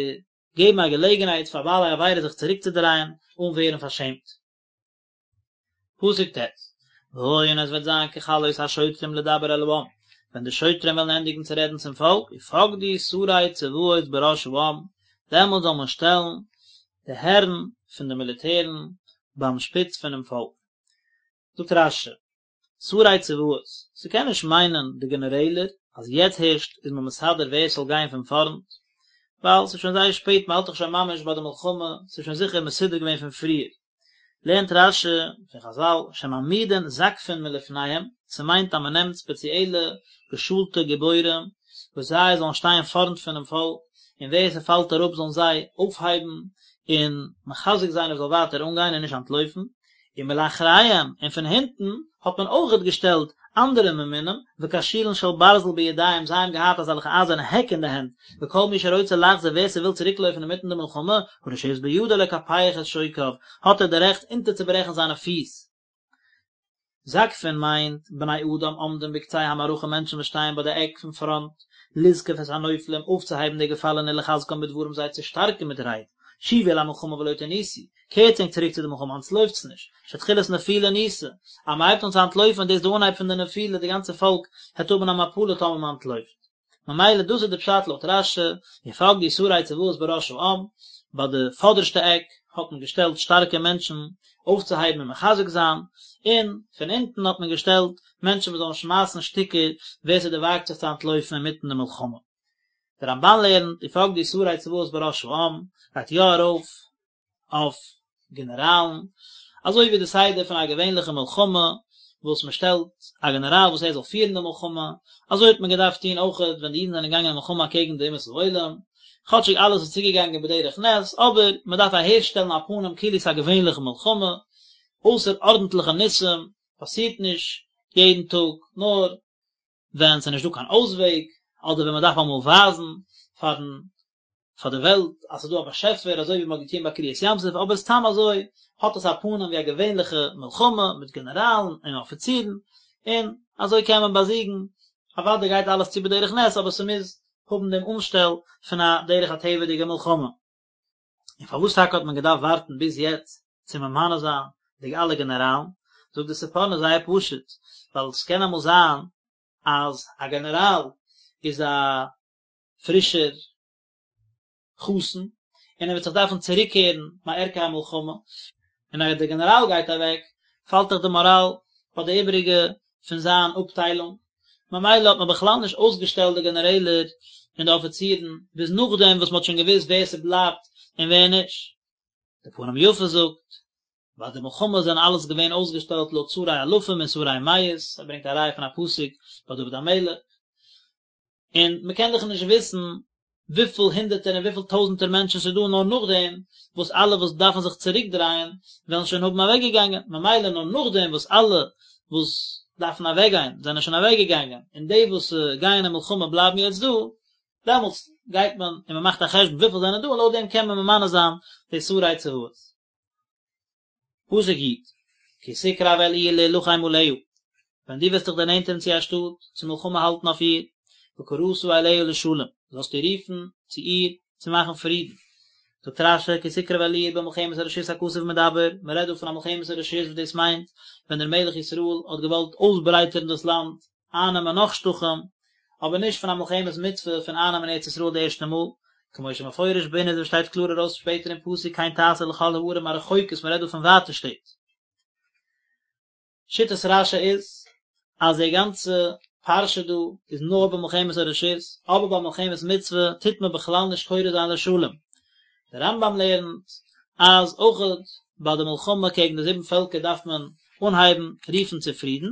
געבן א געלעגנהייט פאר בעלי עבירה זיך צוריקצודרייען אן ווערן פארשעמט. פסוק ט', והיה און עס וועט זיין ככלות השוטרים לדבר אל העם, ווען די שוטרים וועלן ענדיגן צו רעדן צום פאלק, ופקדו שרי צבאות בראש העם, דעמאלט זאל מען שטעלן די הערן פון די מיליטערן ביים שפיץ פונעם פאלק. זאגט רש"י, שרי צבאות, ס'קען נישט מיינען די גענערעלער, אז יעצט הערשט איז מען מסדר ווער ס'זאל גיין פון פארנט, ווייל ס'איז שוין זייער שפעט, מ'האלט דאך שוין ממש ביי די מלחמה, ס'איז שוין זיכער מסודר געווען פון פריער. לערנט רש"י פון חז"ל שמעמידין זקפין מלפניהם, ס'מיינט אז מ'נעמט ספעציעלע געשולטע גיבורים וואס זיי זאלן שטיין פארנט פונעם פאלק, און ווער ס'פאלט אראפ זאלן זיי אויפהייבן און מחזק זיין ער זאל ווייטער אנגיין און נישט אנטלויפן, ומלאחריהם, און פון הינטן האט מען אויכעט געשטעלט אנדערע ממונים, וקשילין של ברזל בידיהם, זיי האבן געהאט אזעלכע אייזערנע העק אין די הענט, וכל מי שרוצה לחזור ווער ס'וויל צוריקלויפן אינמיטן די מלחמה, הרשות בידו לקפח את שוקיו, האט ער די רעכט אונטערצוברעכן זיינע פיס. זקפין מיינט, בני אדם עומדים בקצה המערכה מענטשן וואס שטייען ביי די עק פון פראנט, לזקוף את הנופלים, אויפצוהייבן די געפאלענע ולחזקם בדברים זיי צו שטארקן מיט רייד, שובו אל המלחמה ולא תנוסו, קערטס ענק צוריק צו די מלחמה אנטלויפטס נישט, שתחילת נפילה ניסה, אז מען הייבט אן צו אנטלויפן דאס איז די אנהייב פון די נפילה די גאנצע פאלק העט האבן א מפלה טאמער מען אנטלויפט. ממילא דאס איז די פשט לויט רש"י, ופקדו שרי צבאות בראש העם, ביי די פאדערשטע עק האט מען געשטעלט שטארקע מענטשן אויפצוהייבן און מחזק זיין, און פון אונטן האט מען געשטעלט מענטשן וואס זאלן שמייסן שטיקער ווער ס'דערוואגט זיך צו אנטלויפן אינמיטן די מלחמה. דער רמב"ן לערנט, ופקדו שרי צבאות בראש העם, גייט יא ארויף אויף גענעראלן, אזוי ווי די סדר פון א געווענליכע מלחמה, וואס מען שטעלט א גענעראל וואס ער זאל פירן די מלחמה, אזוי האט מען געדארפט טון אויכעט ווען די אידן זענען געגאנגען אין מלחמה אקעגן די אומות העולם, כאטשיג אלעס איז צוגעגאנגען בדרך נס, אבער מען דארף אהערשטעלן א פנים כאילו ס'איז א געווענליכע מלחמה, אויסערארדנטליכע ניסים פאסירט נישט יעדן טאג, נאר ווען ס'איז נישט דא קיין אויסוועג, אדער ווען מען דארף אמאל ווייזן פארן פאר די וועלט אז ס'איז דא א באשעפער אזוי ווי מ'האט געטון ביי קריעת ים סוף, אבער סתם אזוי האט עס א פנים ווי א געווענליכע מלחמה מיט גענעראלן און אפיצירן, און אזוי קען מען באזיגן, אוודאי גייט אלעס צו בדרך נס אבער ס'מוז האבן דעם אנשטעל פון א דרך הטבע'דיגע מלחמה. און פארוואס טאקע האט מען געדארפט ווארטן ביז יעצט צו ממנה זיין די אלע גענעראלן? זאגט די ספורנו זייער פשוט, ווייל ס'קען אמאל זיין אז א גענעראל איז א פרישער חתן, און ער וועט זיך דארפן צוריקקערן מערכי המלחמה. און אז דער גענעראל גייט אוועק, פאלט דאך די מאראל ביי די איבעריגע פון זיין אפטיילונג, ממילא האט מען בכלל נישט אויסגעשטעלט די גענערעלער און די אפיצירן ביז נאכדעם וואס מען האט שוין געוואוסט ווער ס'בלייבט און ווער נישט. די פנים יפות זאגט, ביי די מלחמה זענען אלעס געווען אויסגעשטעלט לויט שרי אלפים און שרי מאות, ער ברענגט א ראיה פון א פסוק ביי דוד המלך, און מען קען דאך נישט וויסן וויפיל הונדערטער און וויפיל טויזנטער מענטשן ס'איז דא נאר נאכדעם וואס אלע וואס דארפן זיך צוריק דרייען וועלן שוין האבן אוועק געגאנגען, ממילא נאר נאכדעם וואס אלע וואס דארפן אוועק גיין זענען שוין אוועק געגאנגען און די וואס גייען אין מלחמה בלייבן יעצט דא, דעמאלטס גייט מען און מען מאכט א חשבון וויפיל זענען דא און לויט דעם קען מען ממנה זיין די שרי צבאות. פסוק י', כי תקרב אל עיר להלחם עליה, ווען דו וועסט דיך דערנענטערן צו א שטאט, צו מלחמה האלטן אויף איר, וקראת אליה לשלום, זאלסטו רופן צו איר צו מאכן פרידן. זאגט רש"י, כי תקרב אל עיר במלחמת הרשות הכתוב מדבר, מען רעדט דא פון א מלחמת הרשות וואס דאס מיינט ווען דער מלך ישראל האט געוואלט אויסברייטערן דאס לאנד, אייננעמען נאך שטחים, אבער נישט פון א מלחמת מצוה פון אייננעמען ארץ ישראל די ערשטע מאל, כמו שמפורש בענין ווי שטייט קלאר ארויס שפעטער אין פסוק כן תעשה לכל הערים הרחוקות מען רעדט דא פון ווייטע שטעט. שיטת רש"י איז אז די גאנצע פרשה דא איז נאר במלחמת הרשות, אבער ביי מלחמת מצוה טוט מען בכלל נישט קורא זיין לשלום. דער רמב"ם לערנט אז אויכעט ביי די מלחמה קעגן די זיבן פעלקער דארף מען אנהייבן רופן צו פרידן,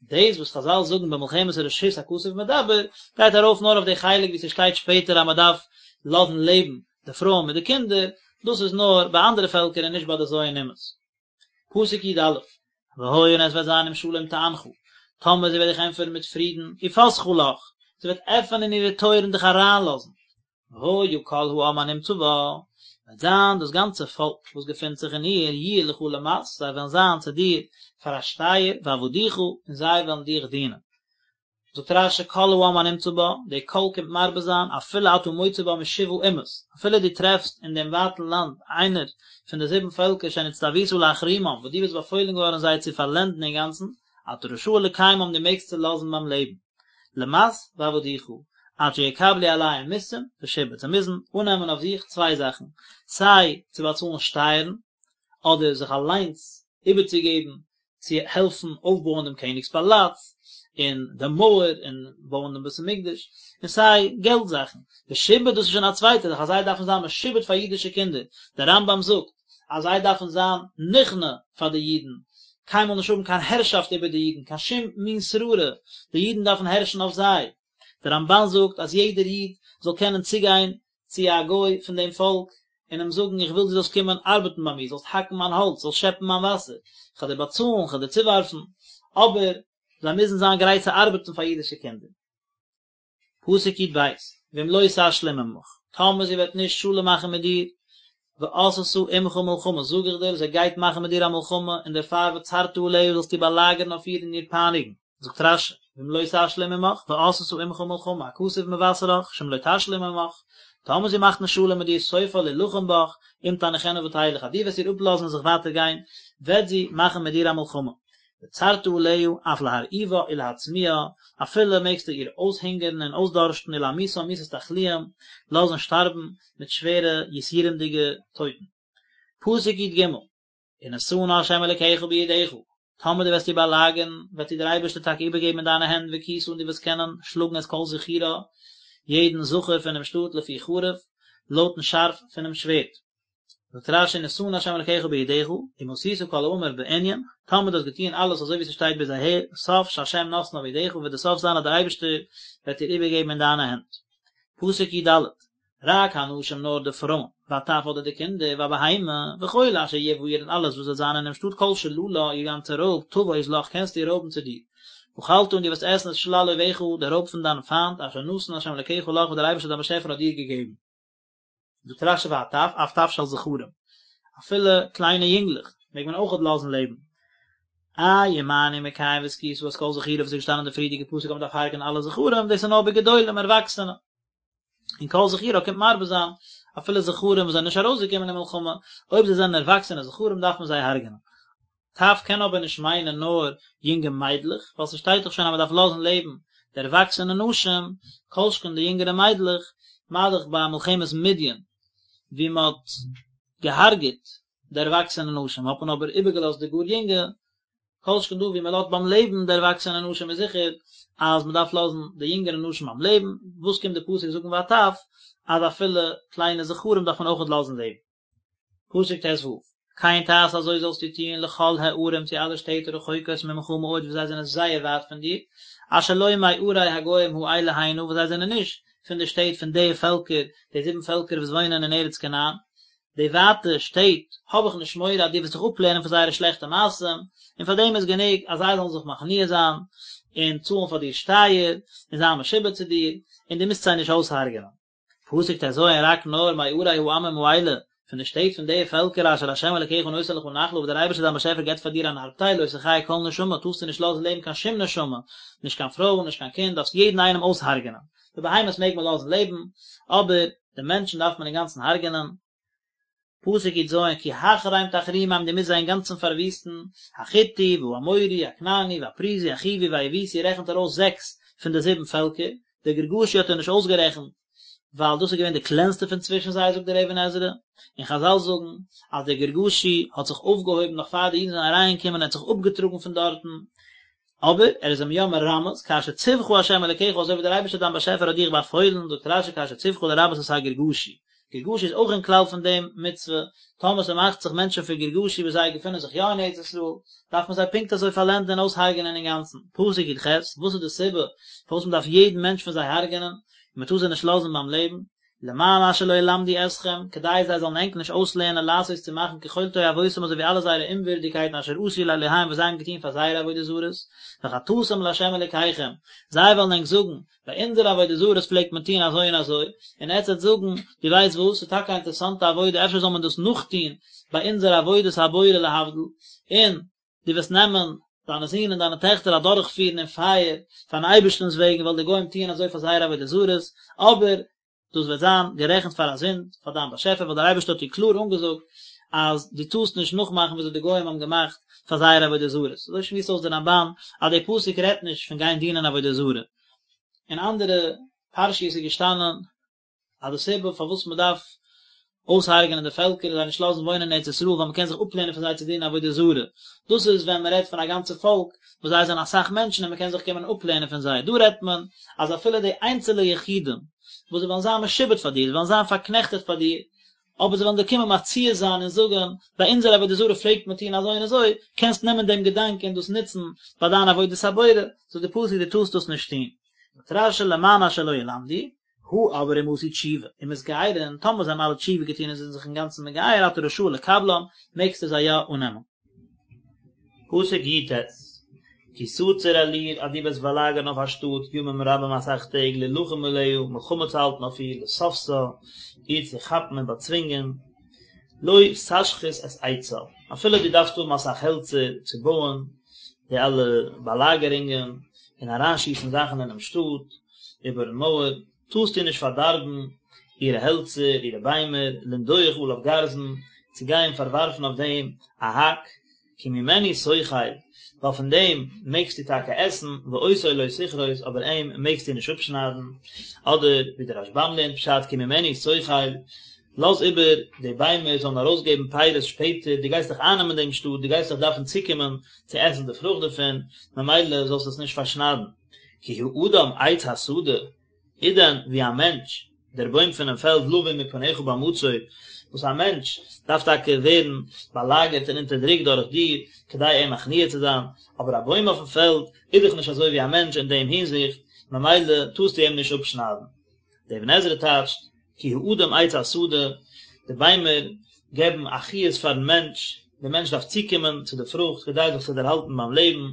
דאס וואס חז"ל זאגן במלחמת הרשות הכתוב מדבר גייט ארויף נאר אויף די חלק ווי ס'שטייט שפעטער אז מ'דארף לאזן לעבן די פרויען מיט די קינדער, דאס איז נאר ביי אנדערע פעלקער און נישט ביי די ז' אומות. פסוק י"א, והיה און עס וועט זיין אם שלום תענך, טאמער זי וועט דיך ענטפערן מיט פרידן, ופתחה לך, זי וועט עפענען אירע טויערן און דיך אריינלאזן, והיה כל העם הנמצא בה, וועט זיין דאס גאנצע פאלק וואס געפינט זיך אין איר, יהיו לך למס, זיי וועלן זיין צו דיר פאר א שטייער, ועבדוך, און זיי וועלן דיך דינען. זאגט רש"י כל העם הנמצא בה, די כל קומט מרבה זיין, אפילו אתה מוצא בה משבעה אומות, אפילו דו טרעפסט אין דעם ווייטן לאנד איינער פון די זיבן פעלקער שנצטווית להחרימם, וואס דו ביסט באפוילן געווארן זיי צו פארלענדן אינגאנצן, אתה רשאי לקיימם דו מעגסט זיי לאזן ביים לעבן. למס ועבדוך, עד שיקבלו עליהם מסים ושעבוד, זיי מוזן אננעמען אויף זיך צוויי זאכן, סיי צו באצאלן שטייערן, אדער זיך אליינס איבערצוגעבן צו העלפן אויפבויען דעם קעניג'ס פאלאץ, און די מויער, און בויען דעם בית המקדש, און סיי געלט זאכן. ושעבוד דאס איז שוין א צווייטע זאך אז זיי דארפן זיין משועבד פאר אידישע קינדער, דער רמב"ם זאגט אז זיי דארפן זיין נכנע פאר די אידן, קיינמאל נישט האבן קיין הערשאפט איבער די אידן, קיין שום מין שררה, די אידן דארפן הערשן אויף זיי. דער רמב"ן זאגט אז יעדער איד זאל קענען צוגיין צו א גוי פון דעם פאלק און אים זאגן איך וויל דו זאלסט קומען ארבעטן ביי מיר, זאלסט האקן מיין האלץ, זאלסט שעפן מיין וואסער, איך וועל דיר באצאלן, איך וועל דיר צואווארפן, אבער זיי מוזן זיין גרייט צו ארבעטן פאר אידישע קינדער. פסוק י"ב, ואם לא תשלים עמך, טאמער זי וועט נישט שלום מאכן מיט דיר, ועשתה עמך מלחמה, זאג איך דיר, זי גייט מאכן מיט דיר א מלחמה, און דערפאר וצרת עליה זאלסטו באלאגערן אויף איר און איר פייניגן. זאגט רש"י, ואם לא תשלים עמך, ועשתה עמך מלחמה, הכתוב מבשרך, שאם לא תשלים עמך, טאמער זי מאכט נישט שלום מיט דיר, סופה להלחם בך, אם תניחנה ותלך, אז דו וועסט איר אפלאזן און זיך ווייטער גיין, וועט זי מאכן מיט דיר א מלחמה. וצרת עליה, אף להרעיבה ולהצמיאה, אפילו מעגסטו איר אויסהונגערן און אויסדארשטן ולהמיתה מיתת תחלואים, לאזן שטארבן מיט שווערע יסורים'דיגע טויטן. פסוק י"ג, ונתנה ה' אלקיך בידך, טאמער דו וועסט איר באלאגערן, וועט איר דער אייבערשטער טאקע איבערגעבן אין דיינע הענט והכית און דו וועסט קענען שלאגן את כל זכורה, יעדן זכר פונעם שטאט לפי חרב, לויטן שארף פונעם שווערד. זאגט רש"י ונתנה ה' אלקיך בידך, אם עשית כל האמור בענין, טאמער דו האסט געטון אלעס אזוי ווי ס'שטייט ביז אהער, סוף שה' נותנה בידך וועט די סוף זיין אז דער אייבערשטער וועט איר איבערגעבן אין דיינע הענט. פסוק י"ד, רק הנשים נאר די פרויען, והטף אדער די קינדער, והבהמה, וכל אשר יהיה בעיר און אלעס וואס וועט זיין אינעם שטאט כל שללה, איר גאנצע רויב, תבוז לך קענסטו רויבן צו דיר. ואכלת און דו וועסט עסן את שלל אויביך, די רויב פון דיין פיינט, אשר נתן ה' אלקיך לך וואס דער אייבערשטער דיין באשעפער האט דיר געגעבן. זאגט רש"י והטף, אף טף של זכרים, אפילו קליינע יונגלעך מעג מען אויכעט לאזן לעבן. איי ומה אני מקיים והכית את כל זכורה וואס איז געשטאנעין אין די פריערדיגע פסוק אז מען דארף הרג'ענען אלע זכרים, דאס איז נאר בגדולים ערוואקסענע. און כל זכורה קומט מרבה זיין אפילו זכרים וואס זענען נישט ארויסגעקומען אין מלחמה, אויב זיי זענען ערוואקסענע זכרים דארף מען זיי הרג'ענען. טף קען אבער נישט מיינען נאר יונגע מיידלעך, ווייל ס'שטייט דאך שוין אז מ'דארף לאזן לעבן די ערוואקסענע נשים, כל שכן די יונגערע מיידלעך, מה דאך ביי מלחמת מדין ווי מ'האט געהארגעט. די ערוואקסענע נשים, האט מען אבער איבערגעלאזט די גאר יונגע, כל שכן דא ווי מען לאזט ביים לעבן די ערוואקסענע נשים איז זיכער אז מען דארף לאזן די יונגערע נשים ביים לעבן, וואס קומט די פסוק זאגן והטף אז אפילו קליינע זכרים דארף מען אויכעט לאזן לעבן. פסוק ט"ו, כן תעשה אזוי זאלסטו טון לכל הערים צו אלע שטעט הרחוקות ממך מאוד וואס זיי זענען זייער ווייט פון דיר, אשר לא מערי הגוים האלה הנה וואס זיי זענען נישט פון די שטעט פון די פעלקער, די זיבן פעלקער וואס וואוינען אין ארץ כנען, די ווייטע שטעט, האב איך נישט מורא אז דו וועסט זיך אפלערנען פון זייערע שלעכטע מעשים, און פאר דעם איז גענוג אז זיי זאלן זיך מכניע זיין, און צאלן פאר דיר שטייער, און זיין משועבד צו דיר, און דו מוזט זיי נישט אויסהרג'ענען. פסוק ט"ז רק נאר מערי העמים האלה, פון די שטעט פון די פעלקער אשר ה' אלקיך נותן לך נחלה וואס דער אייבערשטער דיין באשעפער געבט פאר דיר אן ארבטייל לא תחיה כל נשמה טארסטו נישט לאזן לעבן קיין שום נשמה, נישט קיין פרוי נישט קיין קינד, דארפסט יעדן איינעם אויסהרג'ענען. די בהמות מעג מען לאזן לעבן, אבער די מענטשן דארף מען אינגאנצן הרג'ענען. פסוק י"ז כי החרם תחרימם דו מוזט זיי אינגאנצן פארוויסטן, החתי והאמורי הכנעני והפריזי החוי והיבוסי רעכנט ער אויס זעקס פון די זיבן פעלקער, די גרגשי האט ער נישט אויסגערעכנט ווייל דאס איז געווען די קלענסטע פון צווישן זיי זאגט דער אבן עזרא, און חזל זאגן אז דער גרגשי האט זיך אויפגעהויבן נאך פאר די אידן זענען אריינגעקומען און האט זיך אפגעטראגן פון דארטן, אבער ער איז אים יא מרמז, כאשר צוך ה' אלקיך אזוי ווי דער אייבערשטער דיין באשעפער האט דיך באפוילן, זאגט רש"י כאשר צוך לרבות את הגרגשי, גרגשי איז אויך אין כלל פון דעם מצוה, טאמער ס'מאכט זיך מענטשן פון גרגשי וואס זיי געפינען זיך יא אין ארץ ישראל, דארף מען זיי פונקט אזוי פארלענדן און אויסהרג'ענען אינגאנצן. פסוק י"ח, וואס איז די סיבה פארוואס מען דארף יעדן מענטש פון זיי הרג'ענען, און מען טאר זיי נישט לאזן ביים לעבן? למען אשר לא ילמדו אתכם, כדי זיי זאלן ענק נישט אויסלערנען לעשות צו מאכן ככל תועבותם אזוי ווי אלע זייערע אומווירדיגקייטן אשר עשו לאלהיהם וואס זיי האבן געטון פאר זייערע עבודה זרות, וחטאתם לה' אלוקיכם, זיי וועלן ענק זאגן, ביי אונזערע עבודה זרות פלעגט מען טון אזוי און אזוי, און עטס וועט זאגן, דו ווייסט וואס, ס'איז טאקע א אינטערעסאנטע עבודה, אפשר זאל מען דאס נאכטון ביי אונזער עבודת הבורא להבדיל, און דו וועסט נעמען דיינע זין און דיינע טעכטער אדורכפירן אין פייער פארן אייבערשטנ'ס וועגן ווייל די גוים טוען אזוי פאר זייערע עבודה זרות, אבער דאס וועט זיין גערעכנט פאר א זינד פאר דיין באשעפער ווייל דער אייבערשטער האט דיר קלאר אנגעזאגט אז דו טארסט נישט נאכמאכן וויאזוי די גוים האבן געמאכט פאר זייערע עבודה זרות. אזוי שמועסט אויס דער רמב"ן אז דער פסוק רעדט נישט פון גיין דינען עבודה זרה. אין אנדערע פרשיות איז געשטאנען אז די סיבה פארוואס מען דארף אויסהרג'ענען די פעלקער און זיי נישט לאזן וואוינען אין ארץ ישראל ווייל מען קען זיך אפלערנען פון זיי צו דינען עבודה זרה, דאס איז ווען מען רעדט פון א גאנצע פאלק וואס זיי זענען אסאך מענטשן און מען קען זיך קומען אפלערנען פון זיי, דא רעדט מען אז אפילו די איינצעלע יחידים וואס זיי וועלן זיין משועבד פאר דיר, זיי וועלן זיין פארקנעכטעט פאר דיר, אבער זיי וועלן דיר קומען מציע זיין און זאגן, ביי אונזער עבודה זרה פלעגט מען טון אזוי און אזוי, קענסט נעמען דעם געדאנק און דאס נוצן ביי דיין עבודת הבורא, זאגט די פסוק דו טארסט דאס נישט טון. זאגט רש"י למען אשר לא ילמדו, הא אבער אם עשו תשובה ומתגיירין, טאמער זיי האבן אלע תשובה געטון און זענען זיך אינגאנצן מגייר אתה רשאי לקבלם, מעגסטו זיי יא אננעמען. פסוק י"ט, כי תצור אל עיר אז דו וועסט באלאגערן אויף א שטאט ימים רבים אסאך טעג להלחם עליה, מלחמה צו האלטן אויף איר, לתפשה, איר צו כאפן און באצווינגען, לא תשחית את עצה, אפילו דו דארפסט האבן אסאך העלצער צו בויען די אלע באלאגערונגען און אריינשיסן זאכן אינעם שטאט, איבערן מויער, טארסטו נישט פארדארבן אירע העלצער, אירע ביימער, לנדוח עליו גרזן, צו גיין פארווארפן אויף דעם א האק, כי ממנו תאכל, ווייל פון דעם מעגסטו טאקע עסן, ואותו לא תכרות, אבער אים מעגסטו נישט אפשניידן, אדער ווי דער רשב"ם לערנט פשט, כי ממנו תאכל, לאז איבער די ביימער זאלן ארויסגעבן פירות שפעטער, דו גייסט דאך אייננעמען דעם שטאט, דו גייסט דאך דארפן צוקומען צו עסן די פרוכט דערפון, ממילא זאלסטו עס נישט פארשניידן. כי האדם עץ השדה, איז דען ווי א מענטש, דער בוים פונעם פעלד לבוא מפניך במצור, וואס א מענטש דארף טאקע ווערן באלאגערט און אונטערדרוקט דורך דיר, כדי אים מכניע צו זיין, אבער א בוים אויפן פעלד איז דאך נישט אזוי ווי א מענטש אין דעם הינזיכט, ממילא טארסטו אים נישט אפשניידן. דער אבן עזרא טייטשט, כי האדם עץ השדה, די ביימער געבן א חיות פארן מענטש, דער מענטש דארף צוקומען צו די פרוכט כדי זיך צו דערהאלטן ביים לעבן,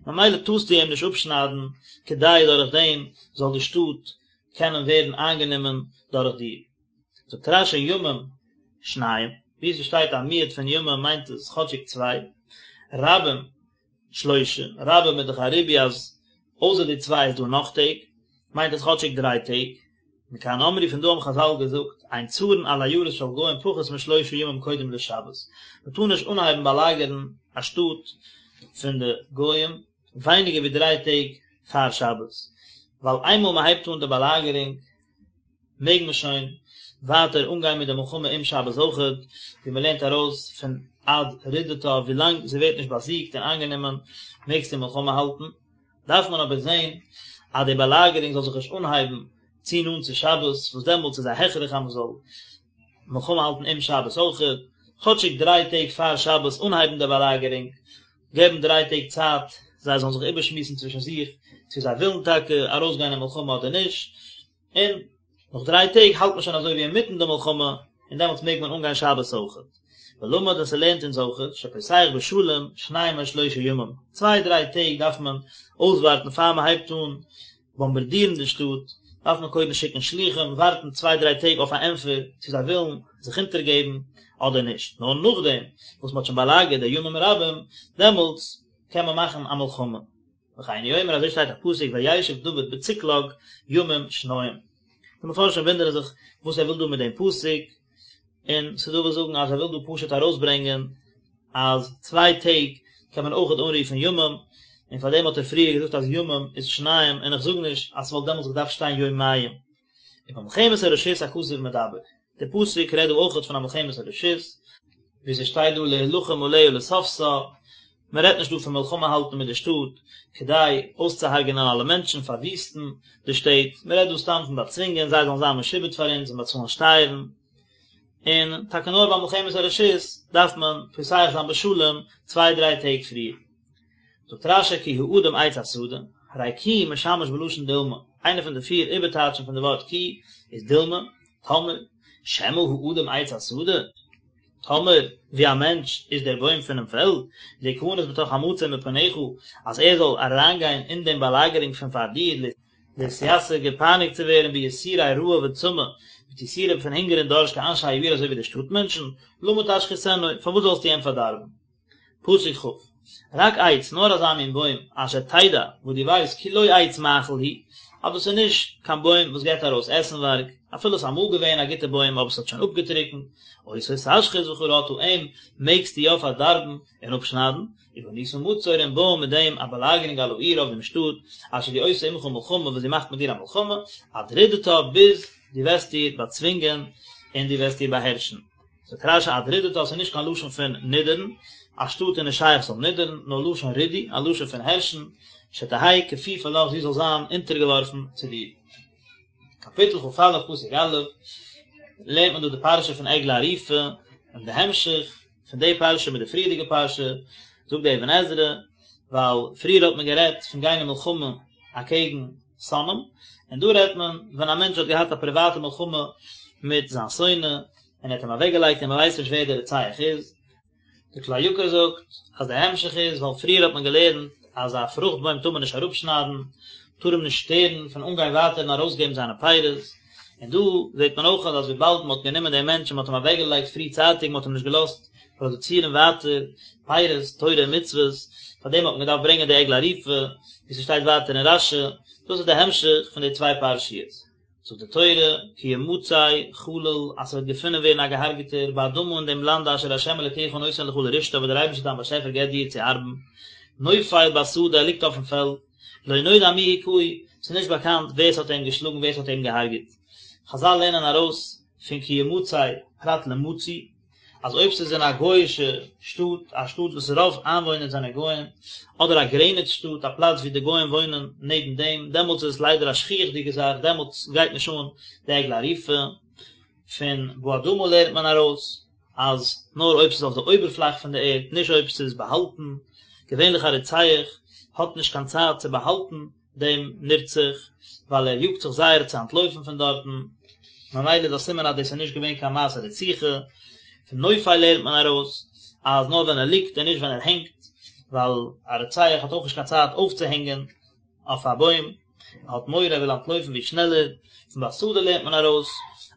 ממילא טארסטו אים נישט אפשניידן, כדי דורך דעם זאל די שטאט קענען ווערן איינגענומען דורך דיר. זאגט רש"י ימים שניים, וואו עס שטייט א מיעוט פון ימים מיינט עס כאטשיג צוויי, רבים שלושה, רבים איז דאך א ריבוי אז אויסער די צוויי איז דא נאך טעג, מיינט עס כאטשיג דריי טעג, מכאן אמרו פון דא האבן חז"ל געזאגט, אין צרין על עיירות של גוים פחות משלושה ימים קודם לשבת, מען טאר נישט אנהייבן באלאגערן א שטאט פון די גוים ווייניגער ווי דריי טעג פאר שבת, ווייל איינמאל מען הייבט אן די באלאגערונג מעג מען שוין. ווייטער אנגיין מיט די מלחמה אום שבת אויכעט, ווי מען לערנט ארויס פון עד רדתה, ווילאנג זי ווערט נישט באזיגט און איינגענומען מעגסטו מלחמה האלטן. דארף מען אבער זען אז די באלאגערונג זאל זיך נישט אנהייבן צו נאנט צו שבת, וואס דעמאלטס איז א הכרח אז מען זאל מלחמה האלטן אום שבת אויכעט, כאטשיג דריי טעג פאר שבת אנהייבן די באלאגערונג, געבן דריי טעג צייט זיי זאלן זיך איבערשמועסן צווישן זיך צו זיי ווילן טאקע ארויסגיין אין מלחמה אדער נישט, און נאך דריי טעג האלט מען שוין אזוי ווי אינמיטן די מלחמה, און דעמאלטס מעג מען אנגיין שבת אויכעט. ולמד און ס'לערנט אונז אויכעט, שפותח בשלום שניים או שלושה ימים, צוויי דריי טעג דארף מען אויסווארטן פאר מען הייבט אן באמבארדירן די שטאט, דארף מען קודם שיקן שלוחים, ווארטן צוויי דריי טעג אויף א ענטפער צו זיי ווילן זיך אונטערגעבן אדער נישט, נאר נאכדעם וואס מען האט שוין באלאגערט די ימים רבים, דעמאלטס קען מען מאכן א מלחמה. וכן הוא אומר אזוי שטייט א פסוק וישב דוד בצקלג ימים שניים. די מפרשים וואונדערן זיך וואס ער וויל דא מיט דעם פסוק, און ס'דא וואס זאגן אז ער וויל דא פשוט ארויסברענגען אז צוויי טעג קען מען אויכעט אנרופן ימים, און פאר דעם האט ער פריער געזאגט אז ימים איז שניים, און איך זאג נישט אז ס'וואלט דעמאלטס געדארפט שטיין יומיים. ובמלחמת הרשות הכתוב מדבר, דער פסוק רעדט דא אויכעט פון א מלחמת הרשות, ווי ס'שטייט דא להילחם עליה לתפשה, מען רעדט נישט דא פון מלחמה האלטן מיט די שטאט כדי אויסצוהרג'נען אלע מענטשן, פארוויסטן די שטעט, מען רעדט דא סתם פון באצווינגען זיי זאלן זיין משועבד פאר אונז און באצאלן שטייערן, און טאקע נאר ביי מלחמת הרשות דארף מען פותח זיין בשלום צוויי דריי טעג פריער. זאגט רש"י כי האדם עץ השדה, הרי כי משמש בלשון דילמא, איינע פון די פיר איבערטייטשן פון די ווארט כי איז דילמא, טאמער, שמא האדם עץ השדה, טאמער, ווי א מענטש איז דער בוים פונעם פעלד, להיכנס בתוך המצור מפניך, אז ער זאל אריינגיין אין דעם באלאגערונג פון פאר דיר, להתייסר געפייניגט צו ווערן ביסורי רעב וצמא, מיט יסורים פון הונגער און דארשט כאנשי העיר אזוי ווי די שטאט מענטשן, למה תשחיתנו, פארוואס זאלסטו אים פארדארבן? פסוק כ', רק עץ, נאר אזא מין בוים, אשר תדע, וואס דו ווייסט, כי לא עץ מאכל הוא, אז דאס איז נישט קיין בוים וואס געבט ארויס עסנווארג, אפילו עס איז אמאל געווען א גוטע בוים אבער עס האט שוין אפגעטריקנט, אותו תשחית וכרתה, אים מעגסטו יא פארדארבן און אפשניידן, ובנית מצור און בויען מיט דעם א באלאגערונג על העיר אויף דעם שטאט, אשר היא עושה עמך מלחמה וואס זי מאכט מיט דיר א מלחמה, עד רדתה ביז דו וועסט איר באצווינגען און דו וועסט איר באהערשן. זאגט רש"י עד רדתה ס'איז נישט קיין לשון פון נידערן, א שטאט איז נישט שייך ס'זאל נידערן, נאר לשון רידוי, א לשון פון הערשן, שתהא כפופה לך זי זאל זיין אונטערגעווארפן צו דיר. קאפיטל כ"א פסוק א', לערנט מען דא די פרשה פון עגלה ערופה, און די המשך פון די פרשה מיט די פריערדיגע פרשה, זאגט די אבן עזרא, ווייל פריער האט מען גערעדט פון גיין אין מלחמה אקעגן שונאים, און דא רעדט מען ווען א מענטש האט געהאט א פריוואטע מלחמה מיט זיין שונא, און ער האט אים אוועקגעלייגט און מען ווייסט נישט ווער דער רוצח איז. דער כלי יקר זאגט אז דער המשך איז ווייל פריער האט מען געלערנט אז א פרוכט בוים טאר מען נישט אראפשניידן, טאר אים נישט שטערן פון אנגיין ווייטער און ארויסגעבן זיינע פירות, און דא זעט מען אויך אז וויבאלד מען האט גענומען דעם מענטש און מען האט אים אוועקגעלייגט פריצייטיג, מען האט אים נישט געלאזט פראדוצירן ווייטער פירות, תורה און מצוות, פאר דעם האט מען געדארפט ברענגען די עגלה ערופה, ווי ס'שטייט ווייטער אין רש"י, דאס איז די המשך פון די צוויי פרשיות. זאגט די תורה, כי ימצא חלל, אז ס'וועט געפונען ווערן א געהארגעטער, באדמה אין דעם לאנד אשר ה' אלוקיך נותן לך לרשתה וואס דער אייבערשטער דיין באשעפער געבט דיר צו ארבן, נופל בשדה, ער ליגט אויפן פעלד, לא נודע מי הכהו, ס'איז נישט באקאנט ווער ס'האט אים געשלאגן ווער ס'האט אים געהארגעט. חז"ל לערנען ארויס פון כי ימצא פרט למצוי, אז אויב ס'איז אין א גוי'אישע שטאט, א שטאט וואס רוב איינוואוינער זענען גוים, אדער א גרעניץ שטאט, א פלאץ ווי די גוים וואוינען נעבן דעם, דעמאלטס איז עס ליידער א שכיח'דיגע זאך, דעמאלטס גייט נישט אן די עגלה ערופה. פון באדמה לערנט מען ארויס אז נאר אויב ס'איז אויף די אויבערפלאך פון די ערד, נישט אויב ס'איז באהאלטן, געווענליך א רוצח האט נישט קיין צייט צו באהאלטן דעם נרצח, ווייל ער יאגט זיך זייער צו אנטלויפן פון דארטן, ממילא איז א סימן אז דאס איז נישט געווען קיין מעשה רציחה, פון נופל לערנט מען ארויס אז נאר ווען ער ליגט און נישט ווען ער הענגט, ווייל א רוצח האט אויך נישט קיין צייט אויפצוהענגען אויף א בוים, ער האט מורא ער וויל אנטלויפן ווי שנעלער, פון בשדה לערנט מען ארויס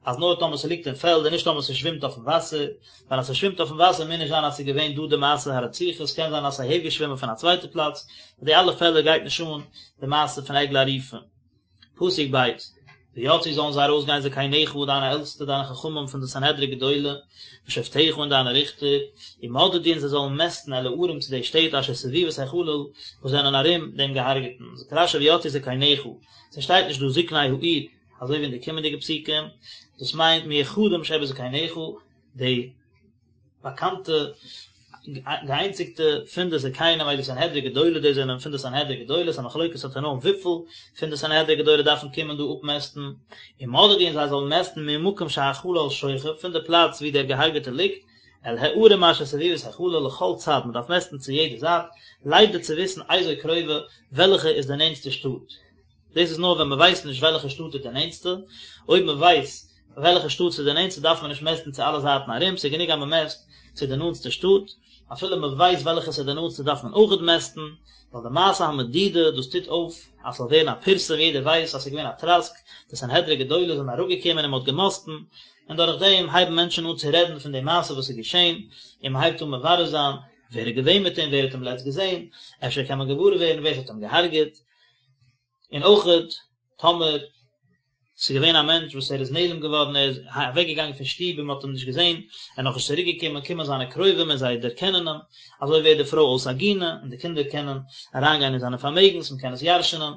אז נאר טאמער ס'ליגט אין פעלד און נישט טאמער ס'שווימט אויפן וואסער, ווייל אז ס'שווימט אויפן וואסער מוז נישט זיין אז ס'איז געווען דא די מעשה הרציחה, ס'קען זיין אז ס'איז אהערגעשווימען פון א צווייטע פלאץ, ביי די אלע פעלער גייט נישט אן די מעשה פון עגלה ערופה. פסוק ב', ויצאו זאלן זיי ארויסגיין זקניך דיינע עלטסטע דיינע חכמים פון די סנהדרין גדולה, ושופטיך און דיינע ריכטער, ומדדו און זיי זאלן מעסטן אל הערים צו די שטעט אשר סביבות החלל וואס זענען ארום דעם געהארגעטן, זאגט רש"י ויצאו זקניך, ס'שטייט נישט דא זקני העיר. אזוי ווי אין די קומענדיגע פסוקים, דאס מיינט מיוחדים שבזקניך, די באקאנטע געאיינציגטע פון די זקנים אלו סנהדרין גדולה, דאס זענען פון די סנהדרין גדולה, ס'איז א מחלוקת התנאים וויפיל פון די סנהדרין גדולה דארפן קומען דא אפמעסטן, ומדדו און זיי זאלן מעסטן ממקום שהחלל שוכב, פון די פלאץ ווי דער געהארגעטער ליגט, אל הערים אשר סביבות החלל לכל צד, מען דארף מעסטן צו יעדע זייט, לידע צו וויסן איזו קרובה, וועלכע איז די נענטסטע שטאט. דאס איז נאר ווען מען ווייסט נישט וועלכע שטאט איז די נענטסטע, אויב מען ווייסט וועלכע שטאט ס'איז די נענטסטע דארף מען נישט מעסטן צו אלע זייטן ארום, ס'איז גענוג אז מען מעסט צו די נאנטסטע שטאט, אפילו מען ווייסט וועלכע ס'איז די נאנטסטע דארף מען אויכעט מעסטן, ווייל די מעשה המדידה דאס טוט אויף אז ס'זאל ווערן א פירסום יעדער ווייסט אז ס'איז געווען א טראסק, די סנהדרין גדולה זענען אראפגעקומען און מען האט געמאסטן, און דורך דעם הייבן מענטשן אן צו רעדן פון די מעשה וואס איז געשען, און מען הייבט אן מברר זיין ווער איז געווען מיט אים, ווער האט אים לעצט געזען, אפשר קען מען געוואר ווערן ווער ס'האט אים געהארגעט. און אויכעט טאמער ס'איז געווען א מענטש וואס ער איז נעלם געווארן, ער איז אוועק געגאנגען פון שטוב און מ'האט אים נישט געזען, ער איז נאכנישט צוריק געקומען, קומען זיינע קרובים און זיי דערקענען אים, אזוי ווערט די פרוי אויס עגונה, און די קינדער קענען אריינגיין אין זיינע פארמעגנס, מ'קען עס ירש'נען.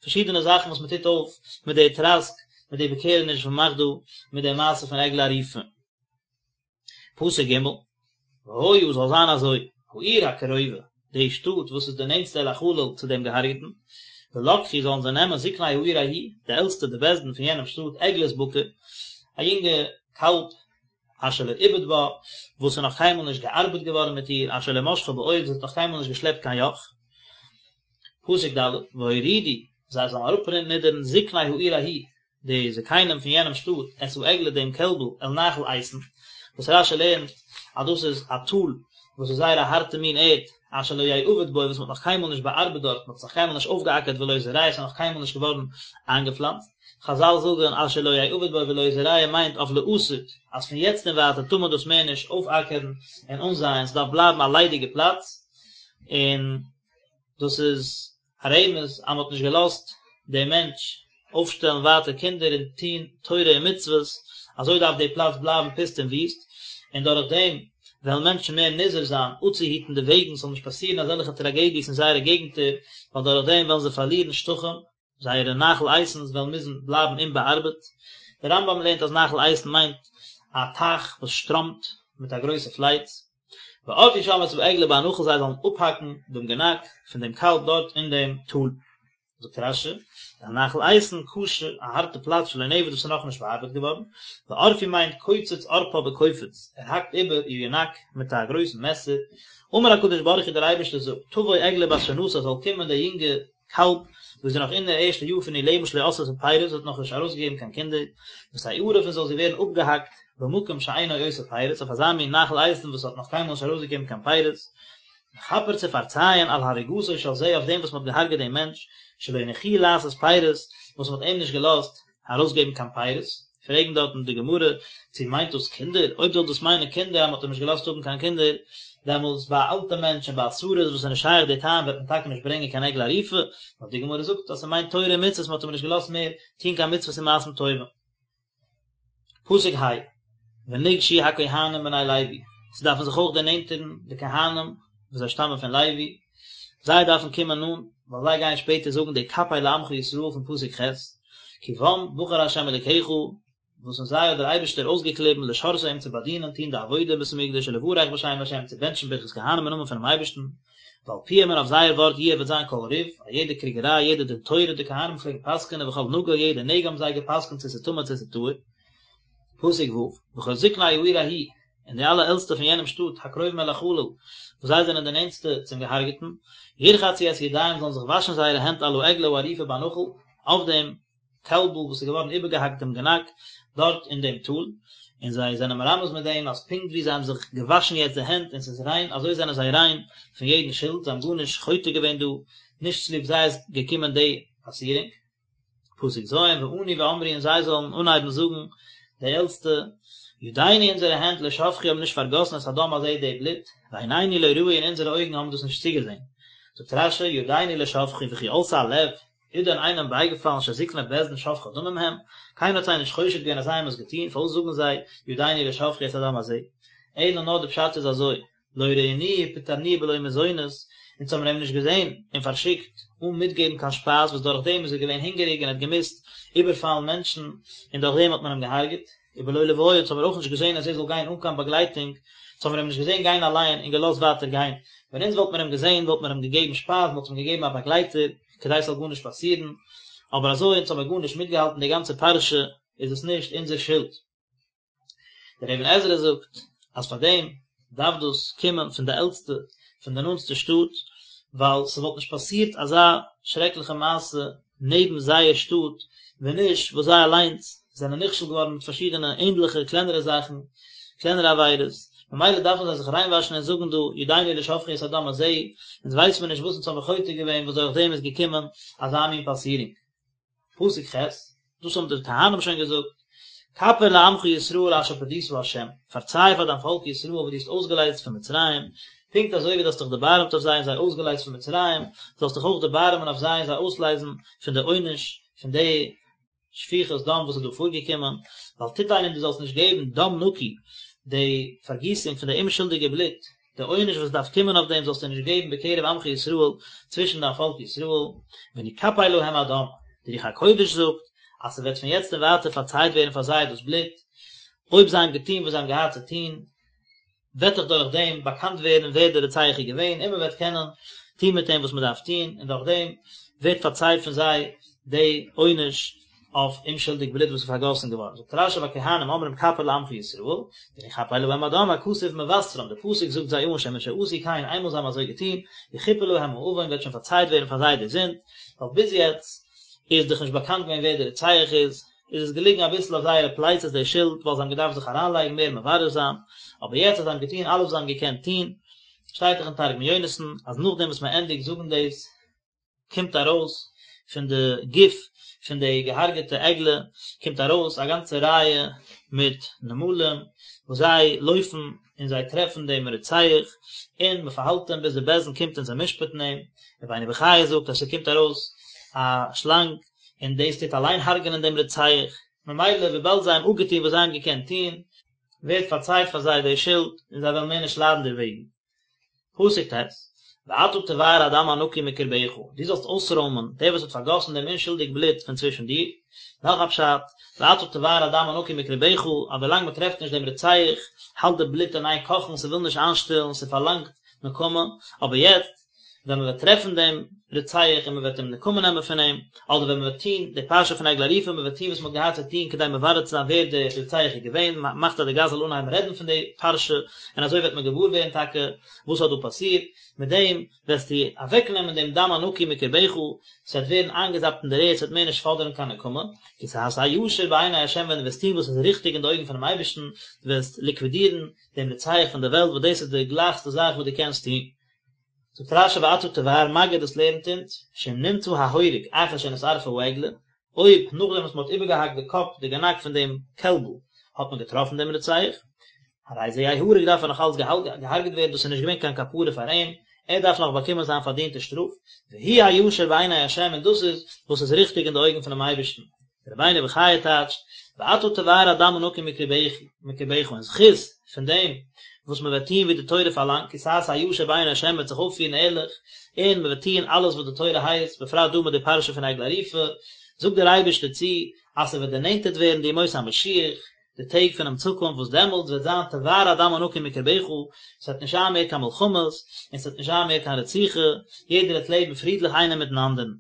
פארשידענע זאכן וואס מ'טוט אויף מיט די טראסק, מיט די איבערקערעניש וואס מ'מאכט דא מיט די מעשה פון עגלה ערופה. פסוק ג', והיה זאל זיין אזוי, העיר הקרובה, די שטאט וואס איז די נענטסטע אל החלל צו דעם געהארגעטן, ולקחו זאלן זיי נעמען זקני העיר ההיא, די עלטסטע די בית דין פון יענעם שטאט, עגלת בקר, א יונגע קאלב, אשר לא עובד בה, וואס איז נאך קיינמאל נישט געארבעט געווארן מיט איר, אשר לא משכה בעול, זי האט נאך קיינמאל נישט געשלעפט קיין יאך. פסוק ד', והורידו, זיי זאלן אראפנידערן זקני העיר ההיא, די זקנים פון יענעם שטאט, את העגלה דעם קעלבל אל נחל איתן, וואס רש"י לערנט אז דאס איז א טאל וואס איז זייער א הארטע מין ערד, אשר לא יעבד בו וואס מען האט נאך קיינמאל נישט באארבעט דארט, מען האט עס נאך קיינמאל נישט אויפגעאקערט ולא יזרע עס איז נאך קיינמאל נישט געווארן איינגעפלאנצט. חז"ל זאגן אשר לא יעבד בו ולא יזרע מיינט אויף לעתיד, אז פון יעצט און ווייטער טאר מען דאס מער נישט אויפאקערן און אנזייען, ס'דארף בלייבן א ליידיגע פלאץ, און דאס איז א רמז אז מען האט נישט געלאזט דעם מענטש אויפשטעלן ווייטער קינדער און טון תורה און מצוות, אזוי דארף די פלאץ בלייבן פוסט און וויסט, און דורך דעם וועלן מענטשן מער נזהר זיין אפצוהיטן די וועגן ס'זאל נישט פאסירן אזעלכע טראגעדיעס אין זייערע געגנטער, ווייל דורך דעם וועלן זיי פארלירן שטחים, זייערע נחל איתן'ס וועלן מוזן בלייבן אומבאארבעט. דער רמב"ם לערנט אז נחל איתן מיינט א טייך וואס שטראמט מיט א גרויסע פלייץ. וערפו שם את העגלה בנחל זיי זאלן אפהאקן דעם גענאק פון דעם קאלב דארט אין דעם טאל. זאגט רש"י, אל נחל איתן קשה, א הארטע פלאץ שלא נעבד וואס איז נאכנישט באארבעט געווארן, וערפו מיינט קוצץ ערפה בקופיץ, ער האקט איבער איר גענאק מיט א גרויסן מעסער, אמר הקדוש ברוך הוא דער אייבערשטער זאגט, תבוא עגלה בת שנתה זאל קומען די יונגע קאלב וואס איז נאך אין דער ערשטע יאר פון איר לעבן שלא עשתה פירות האט נאך נישט ארויסגעגעבן קיין קינדער, ותערף און זאל זי ווערן אפגעהאקט במקום שאינו עושה פירות אויף אזא מין נחל איתן וואס האט נאך קיינמאל נישט ארויסגעגעבן קיין פירות, לכפר צו פארצייען על הריגתו של זה אויף דעם וואס מען האט געהארגעט דעם מענטש, שלא הניחוהו לעשות פירות, וואס מען האט אים נישט געלאזט ארויסגעבן קיין פירות, פרעגן דארטן די גמרא, צו מיינט דאס קינדער? אויב זאל דאס מיינען קינדער אז מען האט אים נישט געלאזט האבן קיין קינדער, דעמאלטס ביי א אלטע מענטש און ביי א סריס וואס איז נישט שייך די טעם וועט מען טאקע נישט ברענגען קיין עגלה ערופה, נאר די גמרא זאגט אז ס'מיינט תורה און מצוות מען האט אים נישט געלאזט מער טון קיין מצוות און מעשים טובים. פסוק ה, ונגשו הכהנים בני לוי, ס'דארפן זיך אויך דערנענטערן די כהנים וואס זיי שטאמען פון לוי, זיי דארפן קומען נאנט, ווייל זיי גייען שפעטער זאגן די כפר לעמך ישראל פון פסוק ח', כי בם בחר ה' אלוקיך, וואס אין זיי האט דער אייבערשטער אויסגעקליבן לשרתו אים צו באדינען, טון די עבודה אין בית המקדש ולברך בשם ה', צו בענטשן ברכת כהנים אין נאמען פונעם אייבערשטן, ועל פיהם און אויף זייער ווארט יהיה וועט זיין כל ריב, א יעדע קריגעריי, יעדע דין תורה, די כהנים פלעגן פסק'ענען וכל נגע, יעדע נגע האבן זיי געפסק'נט צו ס'איז טמא צו ס'איז טהור. פסוק ו', וכל זקני העיר ההיא, און די אלע עלטסטע פון יענעם שטאט, הקרובים אל החלל, וואס זיי זענען די נענטסטע צום געהארגעטן, ירחצו את ידיהם זאלן זיך וואשן זייערע הענט על העגלה הערופה בנחל, אויף דעם קעלבל וואס איז געווארן איבערגעהאקט דעם גענאק דארט אין דעם טאל, און זיי זענען מרמז מיט דעם אז פונקט ווי זיי האבן זיך געוואשן יעצט די הענט און ס'איז ריין, אזוי זענען זיי ריין פון יעדן שולד, זיי האבן גארנישט חוטא געווען דא, נישט צוליב זיי איז געקומען די פאסירונג. פסוק ז', וענו ואמרו און זיי זאלן אנהייבן זאגן, די עלטסטע, ידינו אונזערע הענט לא שפכו האבן נישט פארגאסן את הדם הזה די בלוט, ועינינו לא ראו און אונזערע אויגן האבן דאס נישט צוגעזען. זאגט רש"י, ידינו לא שפכו וכי עלתה על לב, איז דען איינעם בייגעפאלן שזקני בית דין שופכי דמים הם? קיינער האט זיי נישט חושד געווען אז זיי האבן עס געטון, פארוואס זאגן זיי ידינו לא שפכו את הדם הזה? אלא נאר די פשט איז אזוי, לא ראינוהו ופטרנוהו בלא מזונות, אונז האבן אים נישט געזען און פארשיקט אן מיטגעבן קיין שפייז וואס דורך דעם איז ער געווען הונגעריג און האט געמוזט איבערפאלן מענטשן און דורך דעם האט מען אים געהארגעט. ובלא לויה אונז האבן מיר אויך נישט געזען אז ער זאל גיין אן קיין באגלייטונג, אונז האבן מיר אים נישט געזען גיין אליין און געלאזט ווייטער גיין, ווען אונז וואלט מיר אים געזען וואלט מיר אים געגעבן שפייז, מ'וואלט אים געגעבן א באגלייטער כדי ס'זאל גארנישט פאסירן, אבער אזוי אונז האבן מיר גארנישט מיטגעהאלטן די גאנצע פרשה איז עס נישט אונזער שולד. דער אבן עזרא זאגט אז פאר דעם דארף דאס קומען פון די עלטסטע פון די נאנטסטע שטאט, ווייל ס'וואלט נישט פאסירט אזא שרעקליכע מעשה נעבן זייער שטאט ווען נישט וואס זיי אליינס זענען נכשל געווארן מיט פארשידענע ענדליכע קלענערע זאכן, קלענערע עבירות, ממילא דארפן זיי זיך ריינוואשן און זאגן דא ידינו לא שפכו את הדם הזה, אונז ווייס מיר נישט וואס אונז האבן חוטא געווען וואס דורך דעם איז געקומען אזא מין פאסירונג. פסוק ח', דאס האבן די כהנים שוין געזאגט, כפר לעמך ישראל אשר פדית ה', פארציי פאר דיין פאלק ישראל וואס דו האסט אויסגעלייזט פון מצרים, פונקט אזוי ווי דו האסט דיך דערבארעמט אויף זיי און זיי אויסגעלייזט פון מצרים, זאלסט דיך אויך דערבארעמען אויף זיי און זיי אויסלייזן פון די עונש פון די שפיכות דם וואס איז דא פארגעקומען, ואל תתן און דו זאלסט נישט געבן דם נקי, די פארגיסונג פון די אומשולדיגע בלוט, די עונש וואס דארף קומען אויף דעם זאלסטו נישט געבן בקרב עמך ישראל, צווישן דיין פאלק ישראל, ונכפר להם הדם, די רוח הקודש זאגט, אז ס'וועט פון יעצט און ווייטער פארצייט ווערן פאר זיי דאס בלוט, אויב זיי האבן געטון וואס זיי האבן געהאט צו טון, וועט דאך דורך דעם באקאנט ווערן ווער דער רוצח איז געווען, און מען וועט קענען טון מיט אים וואס מען דארף טון, און דורך דעם ווערט פארצייט פון זיי די עונש אויף אומשולדיג בלוט וואס איז פארגאסן געווארן, זאגט רש"י והכהנים אומרים כפר לעמך ישראל, ונכפר להם הדם הכתוב מבשרם, די פסוק זאגט זיי אן שמשעשו כן איינמאל זיי האבן אזוי געטון, יכופר להם העון וועט שוין פארצייט ווערן פאר זיי די זינד, ווייל ביז יעצט איז דאך נישט באקאנט געווען ווער דער רוצח איז, איז עס געליגן אביסל אויף זייערע פלייצעס די שולד ווייל זיי האבן געדארפט זיך אריינלייגן מער מברר זיין, אבער יעצט אז זיי האבן געטון אלעס וואס זיי האבן געקענט טון, שטייט דאך אין תרגום יונתן אז נאכדעם וואס מען ענדיגט זאגן דאס, קומט ארויס פון די גוף פון די געהארגעטע עגלה קומט ארויס א גאנצע רייע מיט נמלים וואס זיי לויפן און זיי טרעפן דעם רוצח און מען פארהאלט אים ביז די בית דין קומט און זיי משפט'ן אים, רבינו בחיי זאגט אז ס'קומט ארויס א שלאנג און דאס טוט אליין הרג'נען דעם רוצח, ממילא וויבאלד זיי האבן אפגעטון וואס זיי האבן געקענט טון, ווערט פארצייט פאר זיי די שולד און זיי וועלן מער נישט ליידן דערוועגן. פסוק ט', ואתה תבער הדם הנקי מקרבך, דו זאלסט אויסרוימען דער וואס האט פארגאסן דעם אומשולדיג בלוט פון צווישן דיר. נאך א פשט, ואתה תבער הדם הנקי מקרבך, אז ווילאנג מען טרעפט נישט דעם רוצח, האלט די בלוט אין איין קאכן, ס'וויל נישט איינשטילן, ס'פארלאנגט נקמה, אבער יעצט, ווען מען וועט טרעפן דעם רוצח און מען וועט אים נקמה נעמען פון אים, אדער ווען מען וועט טון די פרשה פון עגלה ערופה, מען וועט טון וואס מען האט געהאט צו טון כדי מברר צו זיין ווער דער רוצח איז געווען, מען מאכט אז די גאס זאל אנהייבן רעדן פון די פרשה, און אזוי וועט מען געוואר ווערן טאקע וואס האט דא פאסירט, מיט דעם וועסטו אוועקנעמען דעם דם הנקי מקרבך, ס'וועט ווערן איינגעזאפט אין דער ערד, ס'וועט מער נישט פאדערן קיין נקמה, כי תעשה הישר בעיני ה' ווען דו וועסט טון וואס איז ריכטיג אין די אויגן פונעם אייבערשטן, דו וועסט ליקווידירן דעם רוצח פון דער וועלט, וואס דאס איז די גלייכסטע זאך וואס דו קענסט טון. זאגט רש"י ואתה תבער מגיד דאס לערנט אונז, שאם נמצא ההורג אחר שנשרפה העגלה, אויב נאכדעם וואס מען האט איבערגעהאקט די קאפ די גענאק פון דעם קעלבל האט מען געטראפן דעם רוצח, הרי זה יהרג דארף ער נאך אלץ געהארגעט ווערן דאס איז נישט געווען קיין כפרה פאר אים, ער דארף נאך באקומען זיין פארדינטע שטראף, והוא הישר בעיני ה' און דאס איז וואס איז ריכטיג אין די אויגן פונעם אייבערשטן. רבינו בחיי טייטשט, ואתה תבער הדם הנקי מקרבך, אין זכות פון דעם וואס מען וועט טון ווי די תורה פארלאנגט, כי תעשה הישר בעיני השם מען וועט זיך אויפפירן ערליך, און מען וועט טון אלעס וואס די תורה הייסט, בפרט דא מיט די פרשה פון עגלה ערופה, זאגט דער אייבערשטער צו, אז ס'וועט דערנענטערט ווערן די ימות המשיח, די טעג פונעם צוקונפט וואס דעמאלטס וועט זיין תבער הדם הנקי מקרבך, ס'וועט נישט זיין מער קיין מלחמות, און ס'וועט נישט זיין מער קיין רציחה, יעדער וועט לעבן פרידליך איינער מיטן אנדערן.